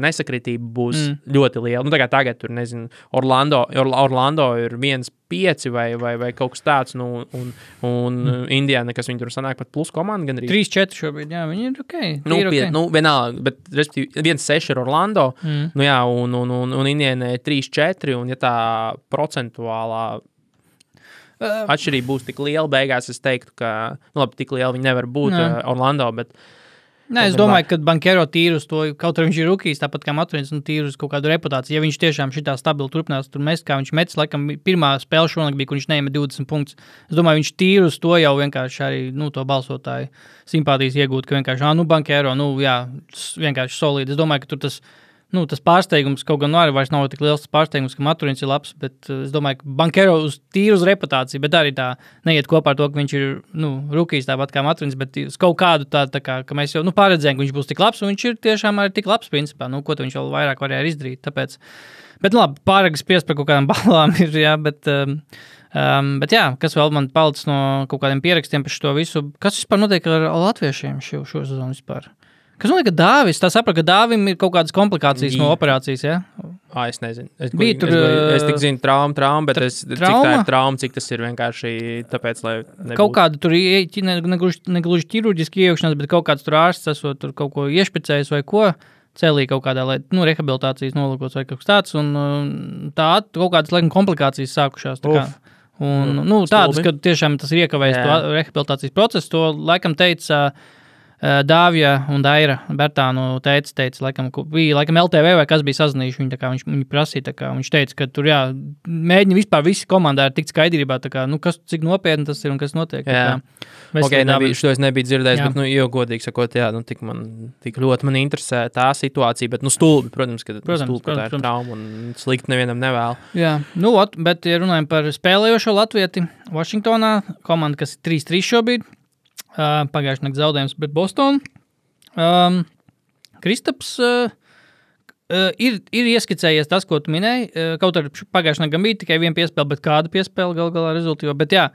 nesakritība būs ļoti liela, tā kā tagad tur, nezinu, Orlando ir 1-5 vai kaut kas tāds, un Indiana, kas viņi tur sanāk pat plus komanda, gan arī 3-4 šobrīd, jā, viņi ir okei. Vienalga, bet 1-6 ir Orlando, un Indiana ir 3-4, un ja tā procentuālā atšķirība būs tik liela beigās, es teiktu, ka, tik liela viņi nevar būt Orlando, bet... Es domāju, ka Banchero tīri uz to, kaut arī viņš ir rukijs, tāpat kā Maturins, tīri uz kaut kādu reputāciju. Ja viņš tiešām šitā stabili turpinās tur mest, kā viņš metis, laikam, pirmā spēle šonakt bija, kur viņš neima 20 punktus. Es domāju, viņš tīri uz to jau vienkārši arī, to balsotāju simpātijas iegūt, ka vienkārši, Banchero, vienkārši solīdi. Es domāju, ka tur tas pārsteigums kaut gan vairs nav tik liels pārsteigums, ka Maturins ir labs, bet es domāju, ka Banchero tīri uz reputāciju, bet arī tā neiet kopā ar to, ka viņš ir, rukijs tāpat kā Maturins, bet uz kaut kādu tā kā, ka mēs jau, pārredzējām, ka viņš būs tik labs, un viņš ir tiešām arī tik labs, principā, ko viņš vēl vairāk varēja izdarīt, tāpēc, bet, labi, pārāk spiest par kaut kādām balām ir, jā, bet Bet jā, kas vēl man palicis no kaut kādiem pierakstiem par šo visu? Kas vispār notiek ar latviešiem šo sezonu vispār? Kas notiek ar Dāvis? Tā sapratu, ka Dāvim ir kaut kādas komplikācijas no operācijas, ja? Es nezinu. Es tik zinu trauma, bet cik tā ir trauma, cik tas ir vienkārši tāpēc, lai nebūtu. Kaut kāda tur negluži ķirurģiski iejaukšanās, bet kaut kāds tur ārsts esot tur kaut ko iešpicējis vai ko. Celī kaut kādā, lai, rehabilitācijas nolūkos vai kaut kas tāds, un tā kaut kādas, laikam, komplikācijas sākušās. Tā kā. Un, tādas, ka tiešām tas ir iekavējis to rehabilitācijas procesu, to laikam teica Dāvija un Daira Bertānu teica, laikam LTV vai kas bija sazinājuši, viņi prasīja, viņš teica, ka tur, mēģina vispār visi komandā ir tikt skaidrībā, cik nopietni tas ir un kas notiek. Šo es nebiju dzirdējis, bet, jo godīgi sakot, tik ļoti man interesē tā situācija, bet, stulbi, protams, ka tā ir trauma un slikti nevienam nevēl. Jā, bet, ja runājam par spēlējošo latvieti Vašingtonā, komanda, kas ir 3-3 šobrīd, pagājušajā nakts zaudējums pret Bostonu. Kristaps ir ieskicējies tas, ko tu minēji. Kaut arī pagājušajā nakts bija tikai viena piespēle, bet kāda piespēle galā rezultīva. Bet jā,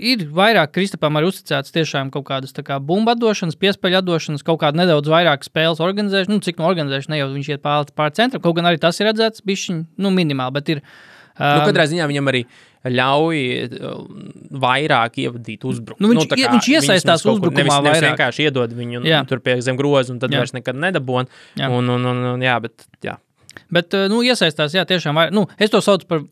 ir vairāk Kristapam arī uzticēts tiešām kaut kādas bumba atdošanas, piespēļu atdošanas, kaut kāda nedaudz vairāk spēles organizēšana. Cik no organizēšana ne jau viņš iet pār centram, kaut gan arī tas ir redzēts bišķiņ, minimāli, bet ir. Katrā ziņā viņam arī ļauj vairāk ievadīt uzbrukumu. Viņš iesaistās uzbrukumā vairāk. Nevis vienkārši iedod viņu tur pie zem grozu un tad vairs nekad nedabon. Bet, iesaistās, tiešām vairāk. Es to saucu par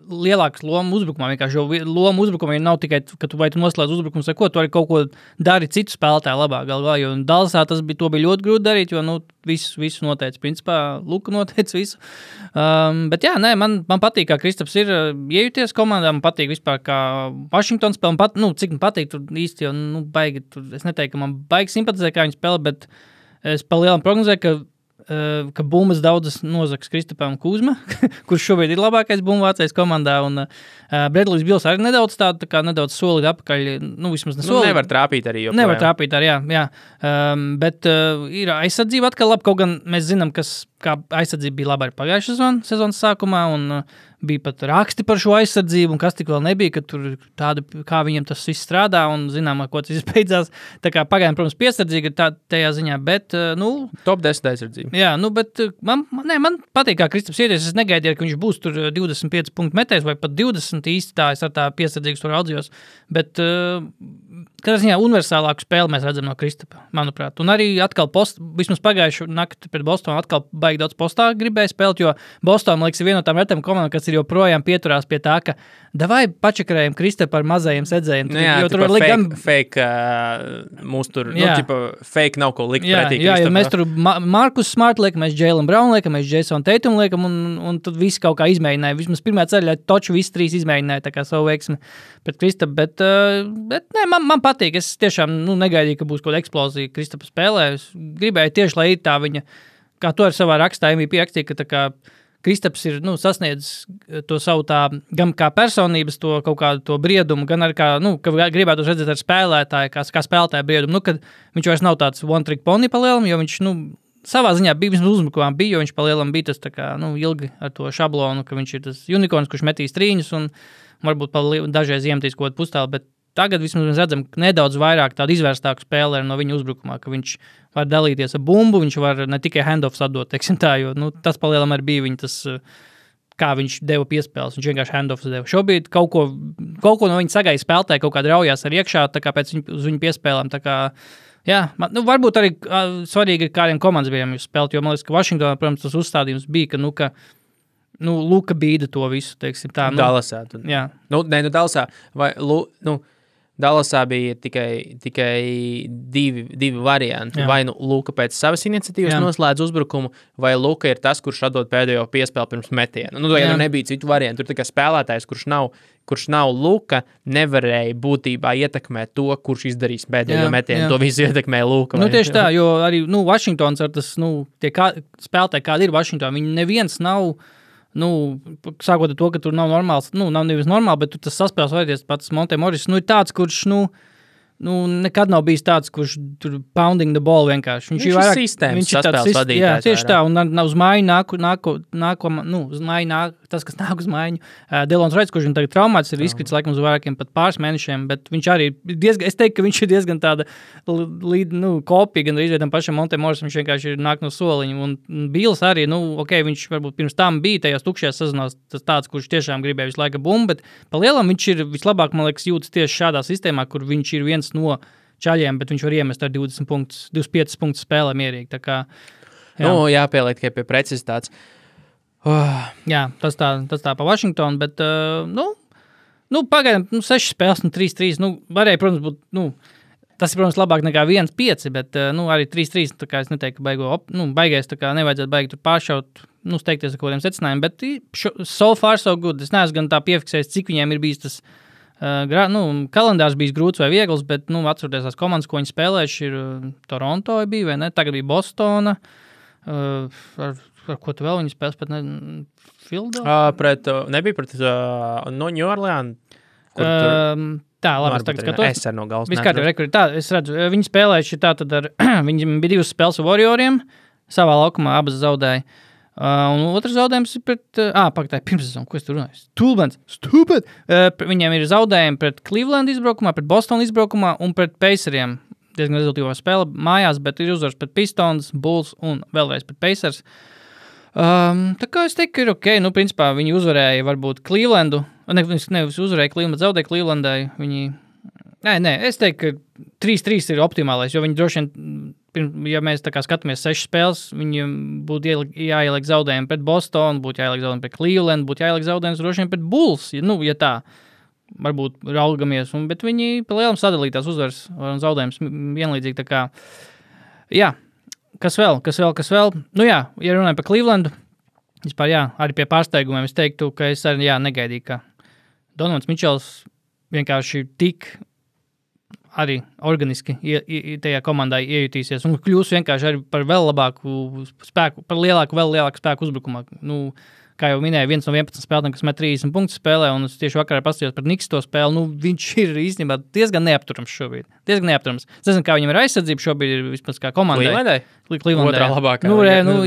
lielākas lomu uzbrukumā, vienkārši, jo loma uzbrukumā nav tikai, ka tu noslēdz uzbrukums vai ko, tu arī kaut ko dari citu spēlētāju labāk galvā, jo Dallasā to bija ļoti grūti darīt, jo, visu noteica, principā, Luka noteica visu. Bet jā, man patīk, kā Kristaps ir iejuties komandā, man patīk vispār, kā Washington spēle, cik man patīk tur īsti, jo, baigi, es neteiktu, ka man baigi simpatizē, kā viņi spēlē, bet es pa lielam prognozēju, ka bumbas daudzas nozags Kristapam Kuzma, kurš šobrīd ir labākais bumbvācējs komandā, un Bredlijs Bils arī nedaudz nedaudz solīt apakaļ, vismaz ne solīt. Nevar trāpīt arī, Nevar trāpīt arī, jā. Bet ir aizsardzība atkal labi, kaut gan mēs zinām, kā aizsardzība bija laba arī pagājušā sezonas sākumā, un bija pat raksti par šo aizsardzību, un kas tik vēl nebija, ka tur tāda, kā viņam tas viss strādā, un zinām, ko tas viss beidzās. Tā kā pagaidām, protams, piesardzīga tajā ziņā, bet, Top 10 aizsardzība. Jā, bet man patīk, kā Kristaps ieties. Es negaidīju, ka viņš būs tur 25 punktu metējs, vai pat 20 īsti tā, es ar tā piesardzīgas tur audzījos, bet, katrā ziņā universālāku spēli mēs redzam no Kristapa, manuprāt. Un arī atkal vismaz pagājušu nakti pret Bostonu atkal baigi daudz postā gribēja spēlēt, jo Boston, man liekas, ir viena no tām retām komandām, kas ir joprojām pieturās pie tā, ka davai pačakarējam Kristapu ar mazajiem sedzējiem. Jo tur var fake mūs tur, fake nav ko likt pretī Kristapam. Jā, mēs tur Markus Smart liekam, mēs Jalen Brown liekam, mēs Jason Tatum liekam, un tad visi kaut kā izmēģināja. Vismaz pirmā ceļā toču visi trīs izmēģināja tā kā savu veiksmi pret Kristapu, bet man patīk. Es tiešām negaidīju, ka būs kaut kāda eksplozija Kristapa spēlē. Es gribēju tieši, lai ir tā viņa, kā to ar savā rakstā MVP rakstīja, ka tā kā Kristaps ir sasniedzis to savu tā, gan kā personības, to kaut kādu to briedumu, gan arī kā, ka gribētu redzēt ar spēlētāju, kā spēlētāju briedumu, kad viņš vairs nav tāds one-trick pony palielam, jo viņš, savā ziņā bija, vismaz uzbrukumā bija, jo viņš palielam bija tas tā kā, ilgi ar to šablonu, ka viņš ir tas unikorns, kurš metīs trīņus un varbūt dažreiz iemetīs kaut kādu pustālu, bet tagad vismaz mēs redzam nedaudz vairāk tādu izvērstāku spēlēru no viņa uzbrukumā, ka viņš var dalīties ar bumbu, viņš var ne tikai handoffs atdot, teiksim tā, jo tas palielam arī bija viņa tas, kā viņš deva piespēles, viņš vienkārši handoffs deva. Šobrīd kaut ko no viņa sagaida spēlētāji, kaut kāda raujās ar iekšā, tā kā pēc uz viņu piespēlēm, tā kā, jā, varbūt arī svarīgi ir kādiem komandas bijām jūs spēlēt, jo man liekas, ka Vašingtonā, protams, tas uzstādījums bija, ka, Luka bīda to visu, teiksim tā. Dallasā. Jā. Dallasā, vai, Dallasā bija tikai divi varianti. Jā. Vai Luka pēc savas iniciatīvas noslēdz uzbrukumu, vai Luka ir tas, kurš atdod pēdējo piespēli pirms metiena. Nebija citu variantu. Tur tā kā spēlētājs, kurš nav Luka, nevarēja būtībā ietekmēt to, kurš izdarīs pēdējo metienu. To visu ietekmēja Luka. Tieši tā, jo arī Vašingtons ar tas, tie spēlētāji, kādi ir Vašingtonā, viņi neviens nav, sākot ar to, ka tur nav normāls, nav nevis normāli, bet tur tas saspēles vajadies pats Monte Morris, ir tāds, kurš, nekad nav bijis tāds, kurš tur pounding the ball vienkārši. Viņš ir sistēmas saspēles vadītājs. Jā, tieši tā, un uz māju tas, kas nāk uz maiņu. Delons Raits, kurš tagad traumāts, ir izkrits laikam uz vairākiem pat pāris mēnešiem, bet viņš arī es teiktu, ka viņš ir diezgan tāda kopija, gan arī tam pašam Montemorisam, viņš vienkārši ir nāk no soliņa. Un Bīls arī, viņš varbūt pirms tam bija tajās tukšajās sezonās tas tāds, kurš tiešām gribēja visu laiku bumbu, bet pa lielam viņš ir vislabāk, man liekas, jūtas tieši šādā sistēmā, kur viņš ir viens no čaļiem, bet viņš var iemest ar 25 punktus spēlē mierīgi. Tā kā, jāpieliek tikai pie precizitātes. Jā, tas tā pa Washingtonu, bet, pagaidām, 6 spēles, 3-3, varēja, protams, būt, tas ir, protams, labāk nekā 1-5, bet, arī 3-3, tā kā es neteiktu, ka baigais, tā kā nevajadzētu baigi tur pāršaut, steigties ar kodiem secinājumiem, bet so far so good, es neesmu gan tā piefiksējis, cik viņiem ir bijis tas, kalendārs bijis grūts vai viegls, bet, atceroties tās komandas, ko viņi spēlējuši, ir Toronto bija, vai ne, tagad bija Bostona, ar ko tu vēl viņi spēles, pat ne Philadelphia? Nebija pret New Orleans, kur tā, labi, es tagad skatos. Es ar no galvas neatceros. Tā, es redzu, viņi spēlējuši tā tad viņi bija 2 spēles ar Warrioriem, savā laukumā abas zaudēja. Un otrs zaudējums ir pret, pagatāji, pirmsezonu, ko es tur runāju? Stupid! Viņiem ir zaudējumi pret Cleveland izbraukumā, pret Boston izbraukumā un pret Paceriem. Diezgan rezultīvā spēle mājās, bet ir uzvars pret Pistons, Bulls un vēlreiz pret Pacers. Tā kā es teiktu, ka ir ok. Principā viņi uzvarēja varbūt Clevelandu. Nevis uzvarēja Clevelandu, zaudēja Clevelandai. Nē, es teiktu, ka 3-3 ir optimālais, jo viņi droši vien, ja mēs tā kā skatāmies 6 spēles, viņiem būtu jāieliek zaudējumi pret Bostonu, būtu jāieliek zaudējumi pret Cleveland, būtu jāieliek zaudējums droši vien pret Bulls, ja tā. Varbūt raugamies, bet viņi pa lielam sadalītās uzvaras un zaudējums vienlīdzīgi, tā kā, kas vēl? Ja runājam par Clevelandu, vispār, arī pie pārsteigumiem es teiktu, ka es arī, negaidīju, ka Donovans Mičels vienkārši tik arī organiski tajā komandā iejutīsies un kļūs vienkārši arī par vēl labāku spēku, par vēl lielāku spēku uzbrukumā, kā jau minēju, viens no 11 spēlētājiem, kas met 30 punktus spēlē, un es tieši vakarā paskatījos par Knicks to spēli, viņš ir īstenībā diezgan neapturams šobrīd. Es nezinu, kā viņam ir aizsardzība šobrīd, ir vispār kā komandai. Clevelandai? Otrā labākā.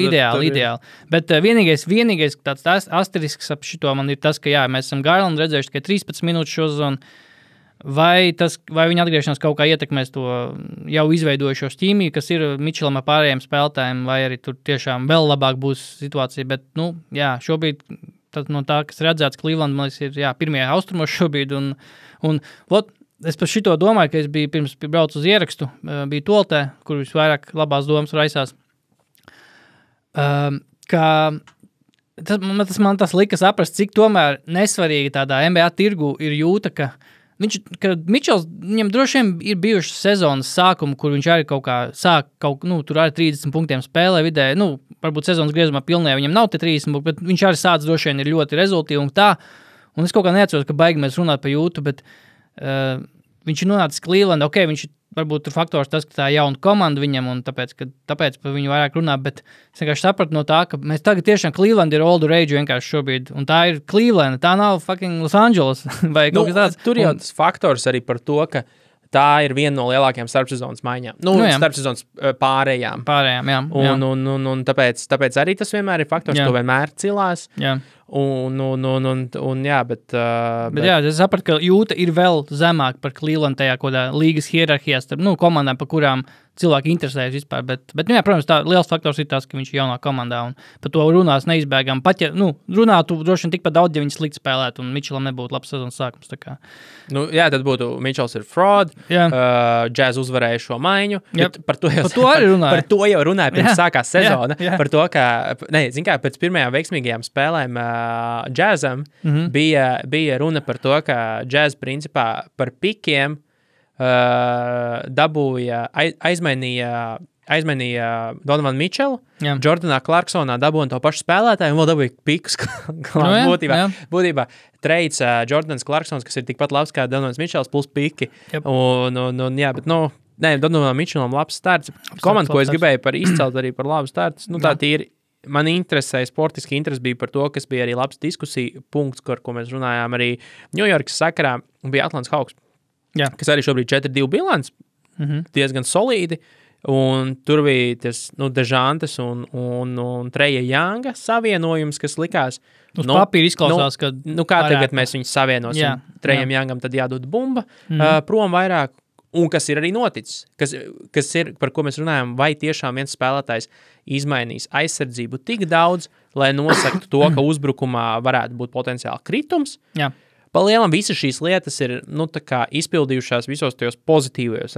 Ideāli. Bet vienīgais tāds asterisks ap šito man ir tas, ka mēs esam Garlandu redzējuši tikai 13 minūtes šo zonu. Vai viņa atgriešanās kaut kā ietekmēs to jau izveidojušos ķīmiju, kas ir Mičelam ar pārējiem spēlētājiem, vai arī tur tiešām vēl labāk būs situācija, bet, šobrīd no tā, kas redzēts Cleveland, man liekas, ir, pirmie austrumos šobrīd, un es par šito domāju, ka es biju pirms braucu uz ierakstu, biju Toltē, kur visvairāk labās domas raisās, ka tas lika saprast, cik tomēr nesvarīgi tādā NBA tirgu ir jūta, ka Mičels, viņam droši vien ir bijušas sezonas sākuma, kur viņš arī kaut kā sāk, tur arī 30 punktiem spēlē vidēji, varbūt sezonas griezumā pilnē, viņam nav te 30 punkti, bet viņš arī sāc droši vien ir ļoti rezultīvi un tā, un es kaut kā neatceros, ka baigi mēs runāt par jūtu, bet viņš ir nonācis Cleveland, ok, viņš varbūt tur faktors tas, ka tā jauna komanda viņam, un tāpēc par viņu vairāk runā, bet es vienkārši sapratu no tā, ka mēs tagad tiešām Cleveland ir all the rage vienkārši šobrīd, un tā ir Cleveland, tā nav fucking Los Angeles, vai kaut kas tāds. Tur jau tas faktors arī par to, ka tā ir viena no lielākajām starpsezonas maiņām. Starpsezonas pārējām. Pārējām, jā. Un tāpēc arī tas vienmēr ir faktors, to vienmēr cilās. Jā. Bet es sapratu, ka jūta ir vēl zemāk par Cleveland tajā kodā līgas hierarhijās starp, komandām, par kurām cilvēki interesējas vispār, bet protams, tā liels faktors ir tas, ka viņš ir jaunā komandā, un par to runās neizbēgam. Pat, runātu droši vien tikpat daudz, ja viņš slikti spēlētu, un Mičelam nebūtu labs sezonas sākums, tā kā. Tad būtu Mičels ir fraud, Jazz uzvarēja šo maiņu, par to jau runāja pirms sākās sezona, par to, ka, pēc pirmajām veiksmīgajām spēlēm Jazzam bija runa par to, ka Jazz principā par pikiem aizmainīja Donovan Mitchell, Jordanā Clarksonā dabūja to pašu spēlētāju un vēl dabūja pikus. Būtībā treids Jordans Clarksons, kas ir tikpat labs kā Donovans Mitchells plus piki. Donovan Mitchellam labs starts. Komanda, ko es gribēju izcelt arī par labu starts, tā tīri. Man interesēja, sportiski interesi bija par to, kas bija arī labs diskusija punkts, ko mēs runājām arī Ņujorkas sakarā, bija Atlantas Hawks, kas arī šobrīd 4-2 bilants, diezgan solīdi. Un tur bija tas, Dežantes un Treja Younga savienojums, kas likās. Uz papīra izklausās, ka kā tagad mēs viņus savienosim. Trejam Youngam tad jādod bumba prom vairāk. Un kas ir arī noticis, kas ir, par ko mēs runājam, vai tiešām viens spēlētājs izmainīs aizsardzību tik daudz, lai nosaktu to, ka uzbrukumā varētu būt potenciāli kritums. Jā. Palielam visas šīs lietas ir izpildījušās visos tajos pozitīvajos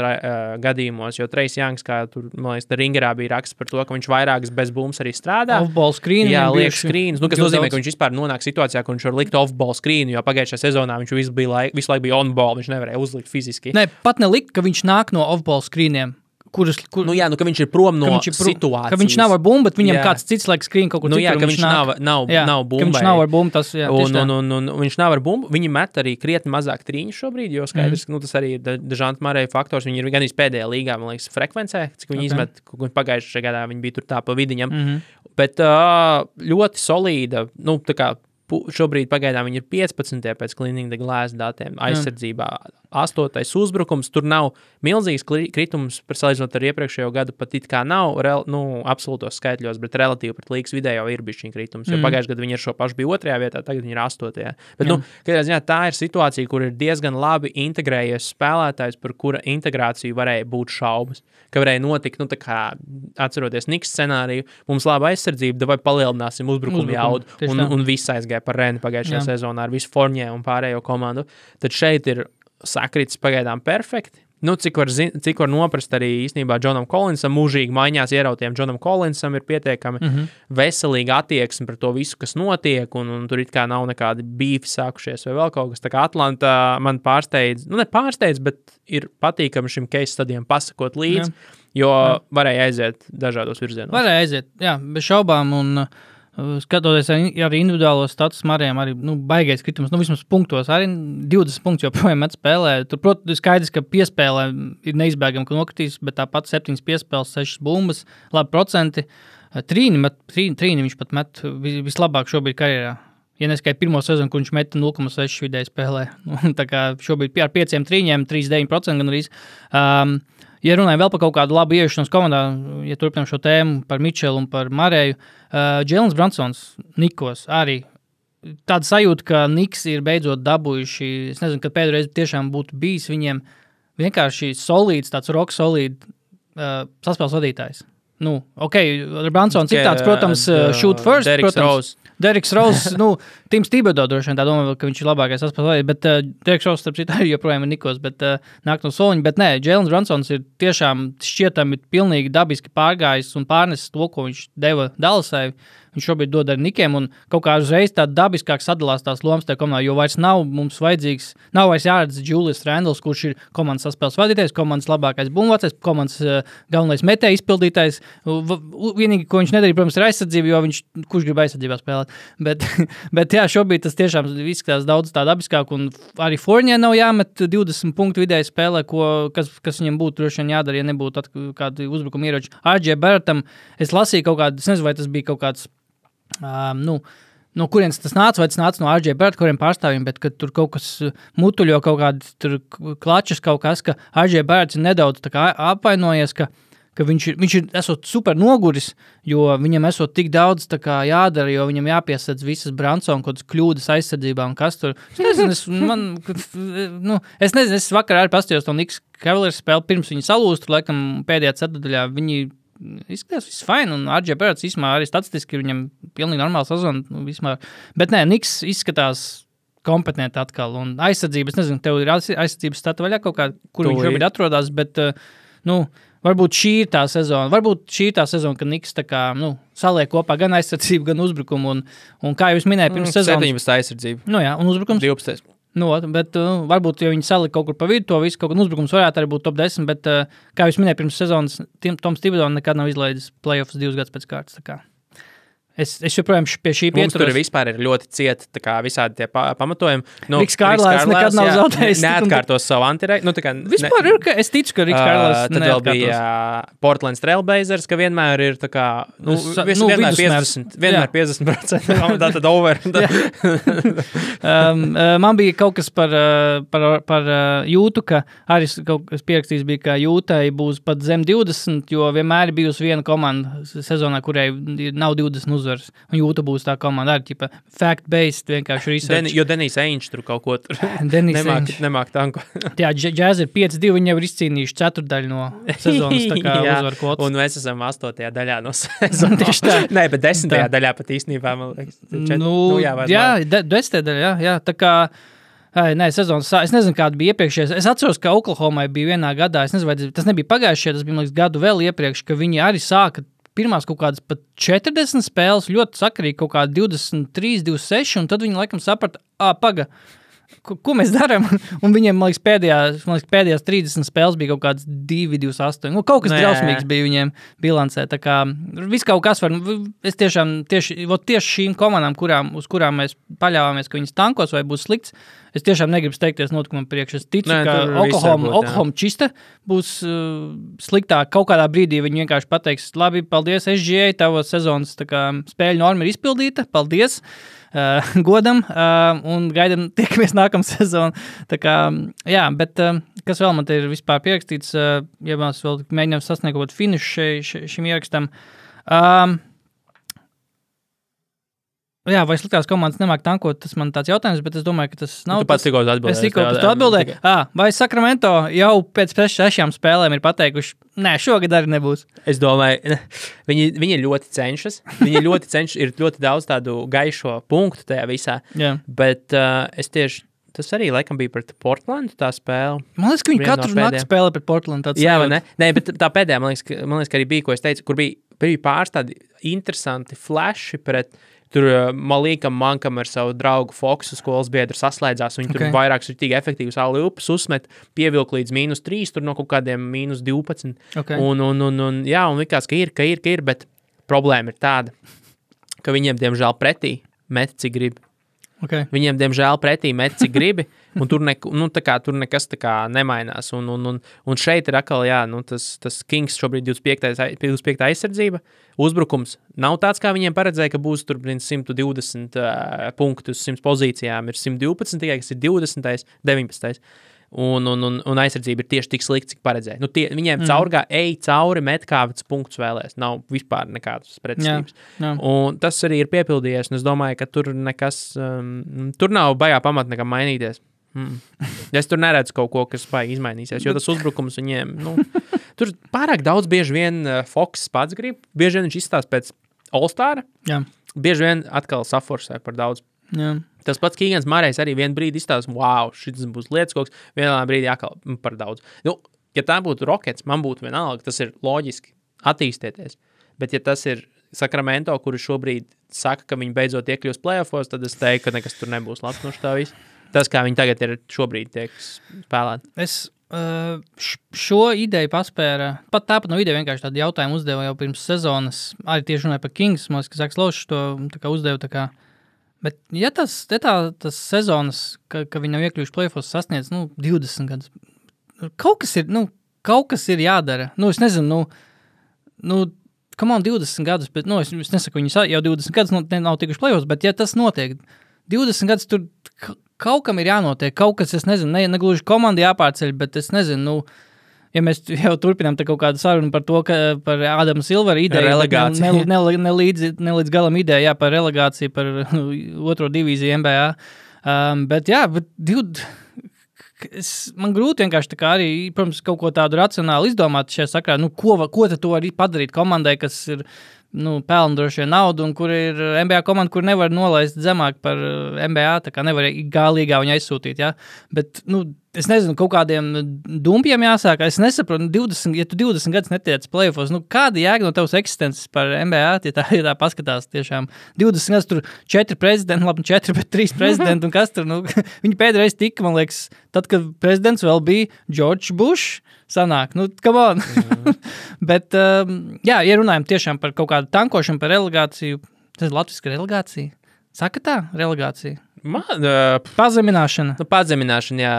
gadījumos, jo Trejs Youngs, kā tur, man liekas, Ringerā bija raksts par to, ka viņš vairākas bez bumbas arī strādā. Off-ball screen. Jā, liek screenus, kas nozīmē, ka viņš vispār nonāk situācijā, ka viņš var likt off-ball screenu, jo pagājušajā sezonā viņš visu laiku bija on-ball, viņš nevarēja uzlikt fiziski. Ne, pat nelikt, ka viņš nāk no off-ball screeniem. Ka viņš ir prom no situācijas. Ka viņš nav ar bumbu, bet viņam kāds cits laiks skrien kaut kur citur. Ka viņš nav bumbai. Ka viņš nav ar bumbu, tas, un viņš nav ar bumbu. Viņi met arī krietni mazāk trīņu šobrīd, jo skaidrs, tas arī ir Dežanta Mareja faktors. Viņi ir gan pēdējā līgā, man liekas, frekvencē, cik viņi izmet, pagājušajā gadā viņi bija tur tā pa vidiņam. Bet ļoti solīda, šobrīd pagaidām viņi ir 15. pēc Cleaning the Glass datiem aizsardzībā. 8. uzbrukums, tur nav milzīgs kritums, salīdzinot ar iepriekšējo gadu, pat it kā nav absolūtos skaitļos, bet relatīvi pret līgas vidējo ir bišķiņ kritums, jo pagājušajā gadā viņi ar šo pašu bija 2. vietā, tagad viņi ir 8. Bet, katrā ziņā tā ir situācija, kur ir diezgan labi integrējies spēlētājs, par kura integrāciju varēja būt šaubas, ka varēja notikt, atceroties Niks scenāriju, mums laba aizsardzība, vai palielināsim uzbrukumu jaudu, un viss aizgāja par Reni pagājušajā sezonā ar visu Fournier un pārējo komandu. Tad šeit ir sakrits pagaidām perfekti. Cik var noprast arī īstenībā Džonam Collinsam, mūžīgi maiņās ierautiem Džonam Collinsam ir pietiekami veselīga attieksme par to visu, kas notiek, un tur it kā nav nekādi bīfi sākušies vai vēl kaut kas. Tā kā Atlanta man pārsteidz, nepārsteidz, bet ir patīkami šim case stadiem pasakot līdzi, jo varēja aiziet dažādos virzienos. Varēja aiziet, jā, bez šaubām, un skatoties arī individuālo status Marējiem, arī baigais kritums, vismaz punktos, arī 20 punktus joprojām met spēlē. Tur, protams, skaidrs, ka piespēlē ir neizbēgami, ka nokritīs, bet tāpat 7 piespēles, 6 bumbas, labi procenti. Trīni viņš pat met vislabāk šobrīd karjerā. Ja neskai pirmo sezonu, kur viņš meta 0,6 vidēji spēlē. Tā kā šobrīd ar 5 trīņiem, 39% gan arī. Ja runājam vēl par kaut kādu labu ieiešanos komandā, ja turpinām šo tēmu par Mičelu un par Mareju, Džēlens Bransons, Nikos, arī tāda sajūta, ka Niks ir beidzot dabūjuši, es nezinu, kad pēdējais tiešām būtu bijis viņiem vienkārši solīds, tāds rock solīd saspēles vadītājs. Bransons ir tāds, protams, shoot first, Deriks Rose, Tims Thibodeau droši vien tā domā, ka viņš ir labākais saspēles, bet Deriks Rose, starp citu, joprojām ir Nikos, bet nāk no soliņa, bet nē, Džēlens Bransons ir tiešām šķietami pilnīgi dabiski pārgājis un pārnesis to, ko viņš deva Dallasai. Viņš šobrīd dod ar Nikiem, un kaut kā uzreiz tā dabiskāk sadalās tās lomas tajā komandā, jo vairs nav mums vajadzīgs, nav vairs jāredz Julius Randles, kurš ir komandas saspēles vadītājs, komandas labākais bumbvācais, komandas galvenais metēja izpildītājs. Vienīgi, ko viņš nedarīja, protams, ir aizsardzība, jo kurš grib aizsardzībā spēlēt. Bet jā, šobrīd tas tiešām izskatās daudz tā dabiskāk, un arī Fournier nav jāmet 20 punktu vidēji spēlē, kas viņam būtu droši vien jādara, ja nebūtu kādi uzbrukuma ieroči. RJ Barrettam, es lasīju kaut kādu, es nezinu, vai tas bija kaut kāds no kurienes tas nāca, vai tas nāca no RJ Barrett, kuriem pārstāvjiem, bet kad tur kaut kas mutuļo, kaut kādi tur klačas kaut kas, ka RJ Barretts ir nedaudz tā kā apvainojies, ka viņš ir esot super noguris, jo viņam esot tik daudz tā kā jādara, jo viņam jāpiesadz visas Bransona kaut kādas kļūdas aizsardzībā un kas tur. Es nezinu, es vakar arī pastījos to Knicks Cavaliers spēli, pirms viņi salūst, laikam pēdējā ceturdaļā viņi izskatās viss fine, un RJ Barretts īsmā arī statistiski viņam pilnīgi normāla sezona, bet nē, Knicks izskatās kompetenti atkal, un aizsardzības, nezinu, tev ir aizsardzības stata vaļā kaut kā, kur viņš šobrīd atrodas, bet, varbūt šī ir tā sezona, kad Knicks tā kā, saliek kopā gan aizsardzību, gan uzbrukumu, un kā jūs minēja pirms sezonas. 17 aizsardzība. Un uzbrukums? 12. Bet varbūt, ja viņi salika kaut kur pa vidu, to visu kaut kā uzbrukums varētu arī būt top 10, bet, kā jūs minēja pirms sezonas, Toms Thibodeau nekad nav izlaidis playoffs 2 gadus pēc kārtas. Tā kā. Es joprojām pie šī pieturos. Mums tur vispār ir ļoti cieti tā kā visādi tie pamatojumi. Riks Kārlēs nekad nav zaudējis. Neatkārtos savu antirei. Vispār ir, ka es ticu, ka Riks Kārlēs tad vēl bija Portland Trailblazers, ka vienmēr ir tā kā, vienmēr 50%. Tātad over. Man bija kaut kas par Jūtu, ka arī kaut kas pierakstījis bija, ka Jūtai būs pat zem 20, jo vienmēr ir bijusi viena komanda sezonā, kurai nav 20 uzvaras. Un Jūta būs tā komanda arī, ķipa, fact-based, vienkārši research. Jo Denijs Ainge tur kaut ko tur nemāk tanko. Jā, Jazz ir 5-2, viņi jau ir izcīnījuši ceturdaļu no sezonas, tā kā uzvaru kvotas. Un mēs esam 8. daļā no sezonas. Tieši tā. Nē, bet 10. daļā pat īstenībā, man liekas. 10. daļā, jā, tā kā... Nē, sezonas, es nezinu, kāda bija iepriekšējais. Es atceros, ka Oklahomai bija vienā gadā, es nezinu, vai tas nebija pagājušajā, tas bija, man liekas, gadu vēl iepriekš, ka viņi arī sāka pirmās kaut kādas pat 40 spēles, ļoti sakarīgi kaut kādi 23, 26, un tad viņi laikam saprata, paga, ko mēs darām? Un viņiem, man liekas, pēdējās 30 spēles bija kaut kāds 2, 28. Kaut kas drausmīgs bija viņiem bilancē. Tā kā viss kaut kas var, es tieši šīm komandām, uz kurām mēs paļāvāmies, ka viņas tankos vai būs slikts, es tiešām negribu steigties notikumam priekš. Es ticu, ka Oklahoma čista būs sliktāk. Kaut kādā brīdī viņi vienkārši pateiks, labi, paldies SGA, tava sezonas spēļu norma ir izpildīta, paldies. Godam un gaidam tiekamies nākamā sezona. Tā kā, jā, bet kas vēl man te ir vispār pierakstīts, ja mēs vēl mēģinām sasniegt kaut finišu šim ierakstam. Jā, vai sliktās komandas nemāk tankot, tas man tāds jautājums, bet es domāju, ka tas nav. Tu pats tikko atbildēji. Es tikko atbildēju. Vai Sacramento jau pēc 6 spēlēm ir pateikuši, nē, šogad arī nebūs? Es domāju, viņi ļoti cenšas. Ir ļoti daudz tādu gaišo punktu tajā visā. Jā. Bet es tieši, tas arī laikam bija pret Portlandu tā spēle. Man liekas, ka viņi katru nakti spēlē pret Portlandu. Jā, vai ne? Nē, bet tā pēdējā, man liekas, ka arī bija, ko es teicu, kur bija pāris tādi interesanti flashi pret tur Malīkam Mankam ar savu draugu Foksu skolas biedru saslēdzās, viņi tur vairākus tīgi efektīvus alley-oops uzmet, pievilk līdz -3, tur no kaut kādiem -12. Okay. Un likās, ka ir, bet problēma ir tāda, ka viņiem, diemžēl, pretī met, cik grib. Okay. Viņiem, diemžēl, pretī met, cik gribi, un tur nekas tā kā nemainās. Un šeit ir atkal, tas Kings šobrīd 25. aizsardzība. Uzbrukums nav tāds, kā viņiem paredzēja, ka būs tur 120 punktus uz 100 pozīcijām. Ir 112, tikai kas ir 20, 19. Un aizsardzība ir tieši tik slikta, cik paredzēja. Viņiem cauri met kā punktus vēlēs. Nav vispār nekādas pretestības. Un tas arī ir piepildījies, un es domāju, ka tur nekas, tur nav baigā pamata nekam mainīties. Es tur neredzu kaut ko, kas baigi izmainīsies, jo tas uzbrukums viņiem, tur pārāk daudz bieži vien Foks pats grib, bieži vien viņš izstāst pēc All-Stara, bieži vien atkal saforsē par daudz. Jā. Tas pats Kīgans Mārējs arī vienu brīdi izstāsta, wow, šis būs lietas kaut kas, vienā brīdī atkal par daudz. Ja tā būtu Rockets, man būtu vienalga, tas ir loģiski attīstieties, bet ja tas ir Sacramento, kuri šobrīd saka, ka viņi beidzot iekļūs playoffos, tad es teiktu, ka nekas tur nebūs labs no tā viss. Tas, kā viņi tagad ir šobrīd tiek spēlēti. Es šo ideju paspēra, pat tāpat no ideja vienkārši tādu jautājumu uzdeva jau pirms sezonas, arī tieši runāja par Kings, man liekas, ka Zaks Lošs to uzdeva tā kā. Bet ja tas sezonas, ka viņi nav iekļuvuši playoffos sasniedz, 20 gadus, kaut kas ir jādara. Es nezinu, come on, 20 gadus, bet, es nesaku, viņi jau 20 gadus nav tikuši playoffos, bet ja tas notiek, 20 gadus tur kaut kam ir jānotiek, kaut kas, es nezinu, negluži komandi jāpārceļ, bet es nezinu, ja mēs jau turpinām te kaut kādu sarunu par to, ka par Ādama Silvera ideju, nelīdz galam ideja, par relegāciju, par otro divīziju NBA, bet man grūti vienkārši tā kā arī, protams, kaut ko tādu racionāli izdomāt šajā sakrā, ko tad tu vari padarīt komandai, kas ir, pelna droši vien naudu, un kur ir NBA komanda, kur nevar nolaist zemāk par NBA, tā kā nevar gālīgā viņu aizsūtīt, bet, es nezinu, kaut kādiem dumpiem jāsāk, es nesaprotu, ja tu 20 gadus netiec playoffos, kāda jēga no tavas eksistences par NBA, ja tā paskatās tiešām, 20 gadus tur 4 prezidenti, labi, 4, bet 3 prezidenti, un kas tur, viņi pēdreiz tika, man liekas, tad, kad prezidents vēl bija George Bush, sanāk, come on. Bet, ja runājam tiešām par kaut kādu tankošanu, par relegāciju, Tas ir latviska relegācija. Saka tā, relegācija. Pazemināšana. Pazemināšana, jā.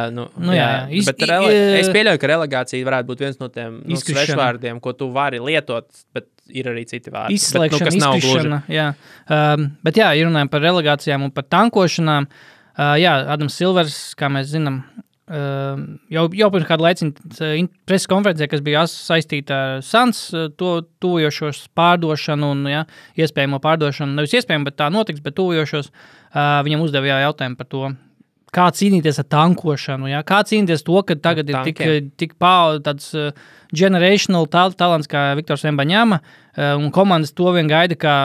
Jā. Bet es pieļauju, ka relegācija varētu būt viens no tiem svešvārdiem, ko tu vari lietot, bet ir arī citi vārdi. Izslēgšana, izkrišana, jā. Bet jā, ja runājam par relegācijām un par tankošanām, jā, Adams Silvers, kā mēs zinām, jau pirms kādu laiciņu preses konferencē, kas bija saistīta ar Suns tuvojošos pārdošanu un iespējamo pārdošanu, nevis iespējamo, bet tā notiks, bet tuvojošos, viņam uzdeva jautājumu par to, kā cīnīties ar tankošanu, kā cīnīties to, ka tagad ir tik tāds generational talants kā Viktors Wembanyama, un komandas to vien gaida, kā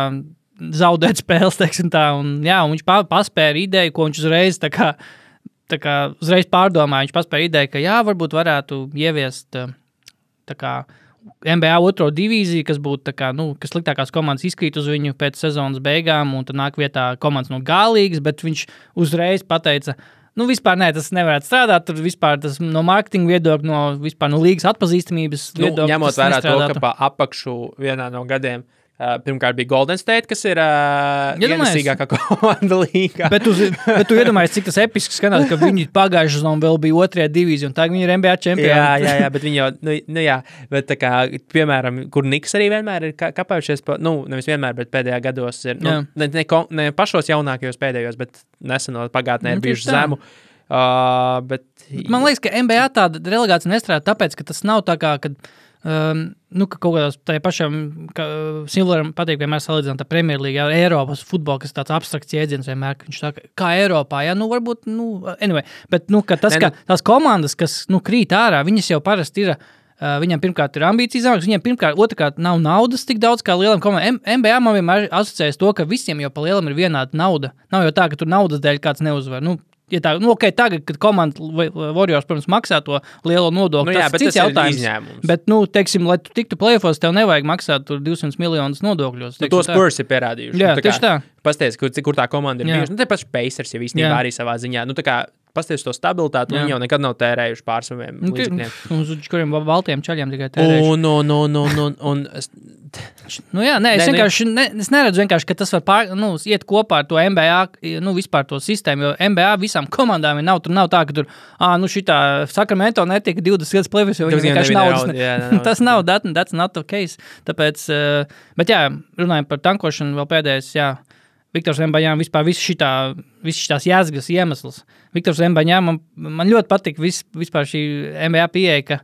zaudēt spēles, teiksim tā, un viņš paspēra ideju, ko viņš uzreiz tā kā uzreiz pārdomāja, viņš paspēja ideju, ka varbūt varētu ieviest tā kā NBA otro divīziju, kas būtu tā kā, kas sliktākās komandas izkrīt uz viņu pēc sezonas beigām, un tad nāk vietā komandas no G-līgas, bet viņš uzreiz pateica, vispār tas nevarētu strādāt, tur vispār tas no mārketinga viedokļa, no līgas atpazīstamības viedokļa. Ņemot vērā to, ka pa apakšu vienā no gadiem pirmkārt bija Golden State, kas ir ienesīgākā komanda līgā. Bet tu iedomājies, cik tas episks skanās, ka viņi pagājušajā sezonā vēl bija otrajā divīzija, un tagad viņi ir NBA čempioni. Jā, bet viņi jau, jā, bet tā kā, piemēram, kur Niks arī vienmēr ir kapājušies, nevis vienmēr, bet pēdējā gados ir, ne pašos jaunākajos pēdējos, bet nesenot pagātnē ir bijuši zemu. Bet man liekas, ka NBA tāda relegācija nestrādā tāpēc, ka tas nav tā kā, kad ka kaut kādās tajā pašām Silveram patīk vienmēr salīdzināt ar Premjerlīgu, Eiropas futbolu, kas tāds abstrakts jēdziens vienmēr, ka viņš saka, kā Eiropā, varbūt, anyway, bet, ka tās komandas, kas, krīt ārā, viņas jau parasti ir, viņam pirmkārt ir ambīcijas zemākas, viņam pirmkārt, otrkārt nav naudas tik daudz kā lielam komandām. NBA man vienmēr asociējas to, ka visiem jau pa lielam ir vienāda nauda. Nav jau tā, ka tur naudas dēļ kāds neuzvar. Ja tā, tagad, kad komanda Warriors, protams, maksā to lielo nodokli, tas cits jautājums. Bet, teiksim, lai tu tiktu play-offos, tev nevajag maksāt tur 200 miljonus nodokļos. To Spurs ir pierādījuši. Jā, tieši tā. Pasties, kur tā komanda ir bijuši. Te paši Pacers jau īstenībā arī savā ziņā. Pasties to stabilitāti, viņi jau nekad nav tērējuši pār saviem līdzekļiem. Uz kuriem baltiem čaļiem tikai tērējuši. Es neredzu vienkārši, ka tas var iet kopā ar to NBA, vispār to sistēmu, jo NBA visām komandām nav, tur nav tā, ka tur, šitā Sacramento netika 20 gadus play-offs, jo viņi vienkārši naudas. Tas nav, that's not the case. Tāpēc, bet runājam par tankošanu vēl pēdējais, Viktors Wembanyama vispār visas šitās jēzgas iemesls. Viktors Wembanyama, man ļoti patīk vispār šī NBA pieeja, ka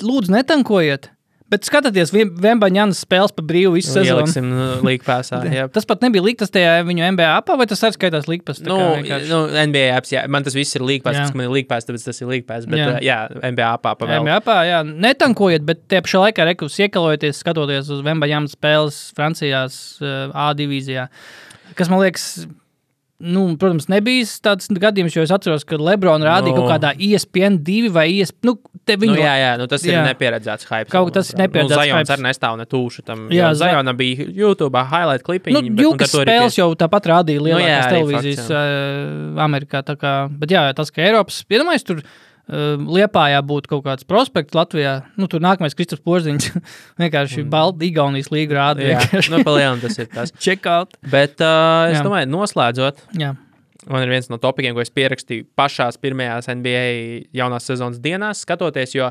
lūdzu netankojiet, bet skatieties Wembanyams spēles pa brīvu visu sezonu. Ieliksim līgpāsā. Tas pat nebija līgtas tajā viņu NBA apā, vai tas arī skaitās līgpās? NBA apps, man tas viss ir līgpās, tas, ka man ir līgpās, tāpēc tas ir līgpās, bet NBA apā pavēl. NBA apā, netankojiet, bet tie pašā laikā iekalojoties, skatoties uz Wembanyama spēles Francijās A divīzijā, kas man liekas, protams, nebija tāds gadījums, jo es atceros, ka LeBron rādīja kaut kādā ESPN 2 vai ESPN, tas ir nepieredzēts hype. Kaut tas ir nepieredzēts hype. Zajons arī nestāv ne tūšu tam. Zajona bija YouTube highlight klipiņi. Jūkas spēles jau tāpat rādīja lielākās televīzijas Amerikā. Bet tas, ka Eiropas, iedomājies, tur Liepājā būtu kaut kāds prospekts Latvijā, tur nākamais Kristaps Porziņš vienkārši Igaunijas līgu rāda. Palielam tas ir tas. Check out. Bet es domāju, noslēdzot, man ir viens no topikiem, ko es pierakstīju pašās pirmajās NBA jaunās sezonas dienās, skatoties, jo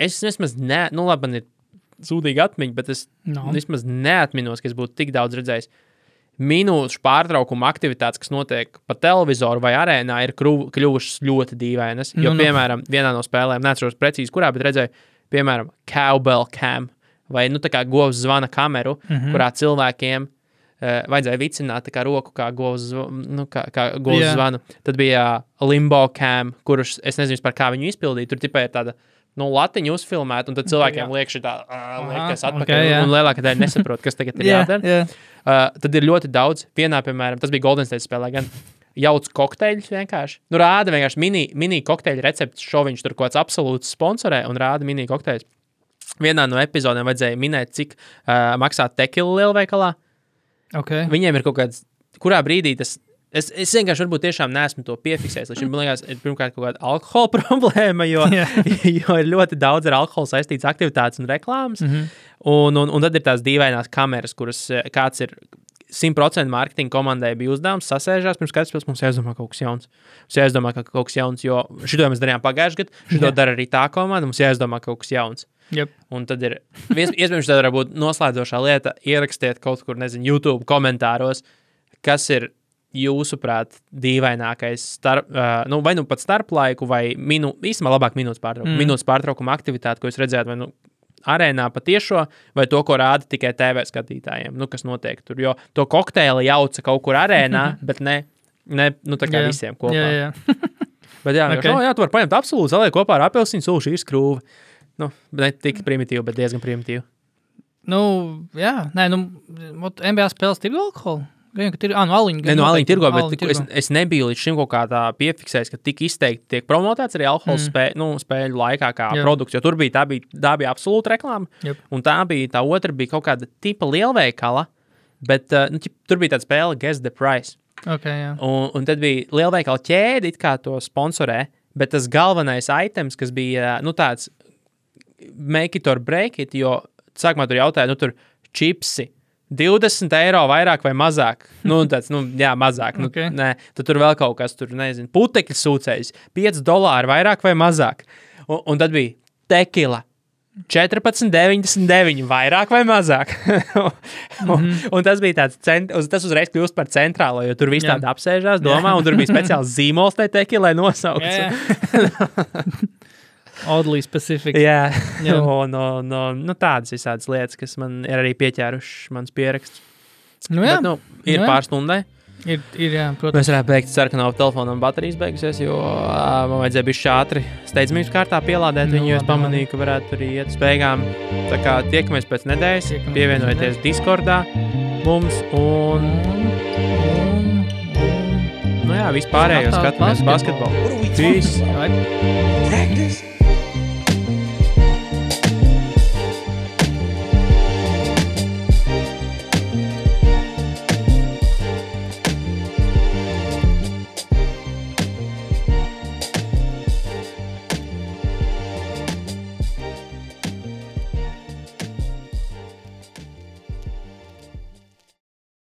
es vismaz man ir sūdīga atmiņa, bet es vismaz neatminos, ka es būtu tik daudz redzējis. Minūšu pārtraukuma aktivitātes, kas notiek pa televizoru vai arēnā, ir kļuvušas ļoti dīvainas. Jo, piemēram, vienā no spēlēm, neatceros precīzi kurā, bet redzēju, piemēram, cowbell cam, vai, tā kā govs zvana kameru, kurā cilvēkiem vajadzēja vicināt tā kā roku, kā govs zvanu. Tad bija limbo cam, kurus, es nezinu par kā viņu izpildīt, tur tipā ir tāda, latiņu uzfilmēt, un tad cilvēkiem liek šitā, liekas atpakaļ, un lielākā daļa nesaprot, kas tagad ir jādara. Tad ir ļoti daudz. Vienā, piemēram, tas bija Golden State spēlē gan jauc kokteļus vienkārši. Rāda vienkārši mini kokteļu receptes šoviņš, tur kaut kāds absolūts sponsorē, un rāda mini kokteļus. Vienā no epizodēm vajadzēja minēt, cik maksā tekila lielveikalā. Okay. Viņiem ir kaut kāds, kurā brīdī tas Es vienkārši varbūt tiešām neesmu to piefiksējis. Līdz šim, man liekas, ir pirmkārt kaut kāda alkohola problēma, jo ir ļoti daudz ar alkoholu saistīts aktivitātes un reklāmas. Un tad ir tās dīvainās kameras, kuras kāds ir 100% mārketinga komandai bija uzdevums, sasēžās, pirms katrs mums jāizdomā kaut kas jauns. Mums jāizdomā kaut kas jauns, jo šito mēs darījām pagājušajā gadā, šito dara arī tā komanda, mums jāizdomā kaut kas jauns. Yep. Un tad ir, iespējams, tā var būt noslēdzošā lieta, ierakstiet kaut kur, YouTube komentāros, kas ir jūsuprāt dīvainākais vai nu pat starplaiku, vai īstenībā labāk minūtes pārtraukuma aktivitāte, ko jūs redzējāt, vai arēnā patiešo, vai to, ko rāda tikai TV skatītājiem, kas notiek tur, jo to kokteili jauca kaut kur arēnā, bet ne tā kā visiem kopā. Jā. Bet tu var paņemt absolūti, zaliek kopā ar apelsīnu sulu, šī ir skrūve. Ne tik primitīvi, bet diezgan primitīvi. NBA spēles tirgo alkoholu? Aliņi tirgo, bet es nebiju līdz šim kaut kā tā piefiksējis, ka tik izteikti tiek promotēts arī alkohols spēļu laikā kā produkts, jo tur tā bija absolūta reklāma, un tā otra bija kaut kāda tipa lielveikala, bet tur bija tāda spēle Guess the Price. Okay, un tad bija lielveikala ķēde, it kā to sponsorē, bet tas galvenais items, kas bija, tāds make it or break it, jo sākumā tur jautāja, tur čipsi, 20 eiro vairāk vai mazāk. Mazāk. Okay. Tad tur vēl kaut kas, putekļu sūcējs, $5 vairāk vai mazāk. Un tad bija tekila, 14,99 vairāk vai mazāk. Un tas bija tas uzreiz kļūst par centrālo, jo tur viss tādi apsēžās, domā, un tur bija speciāls zīmols tai tekilai nosaukts. Oddly specific. Jā. Tādas visādas lietas, kas man ir arī pieķēruši mans pieraksts. Bet, ir pāris stundai. Ir, protams. Mēs varētu beigt sarkanā telefonam baterijas beigusies, jo man vajadzēja bišķi ātri steidzamības kārtā pielādēt viņu, jo es pamanīju, ka varētu arī iet uz beigām. Tā kā tiekamies pēc nedēļas, pievienojieties Discordā mums un vispārējo skatāmies basketbolu. Peace!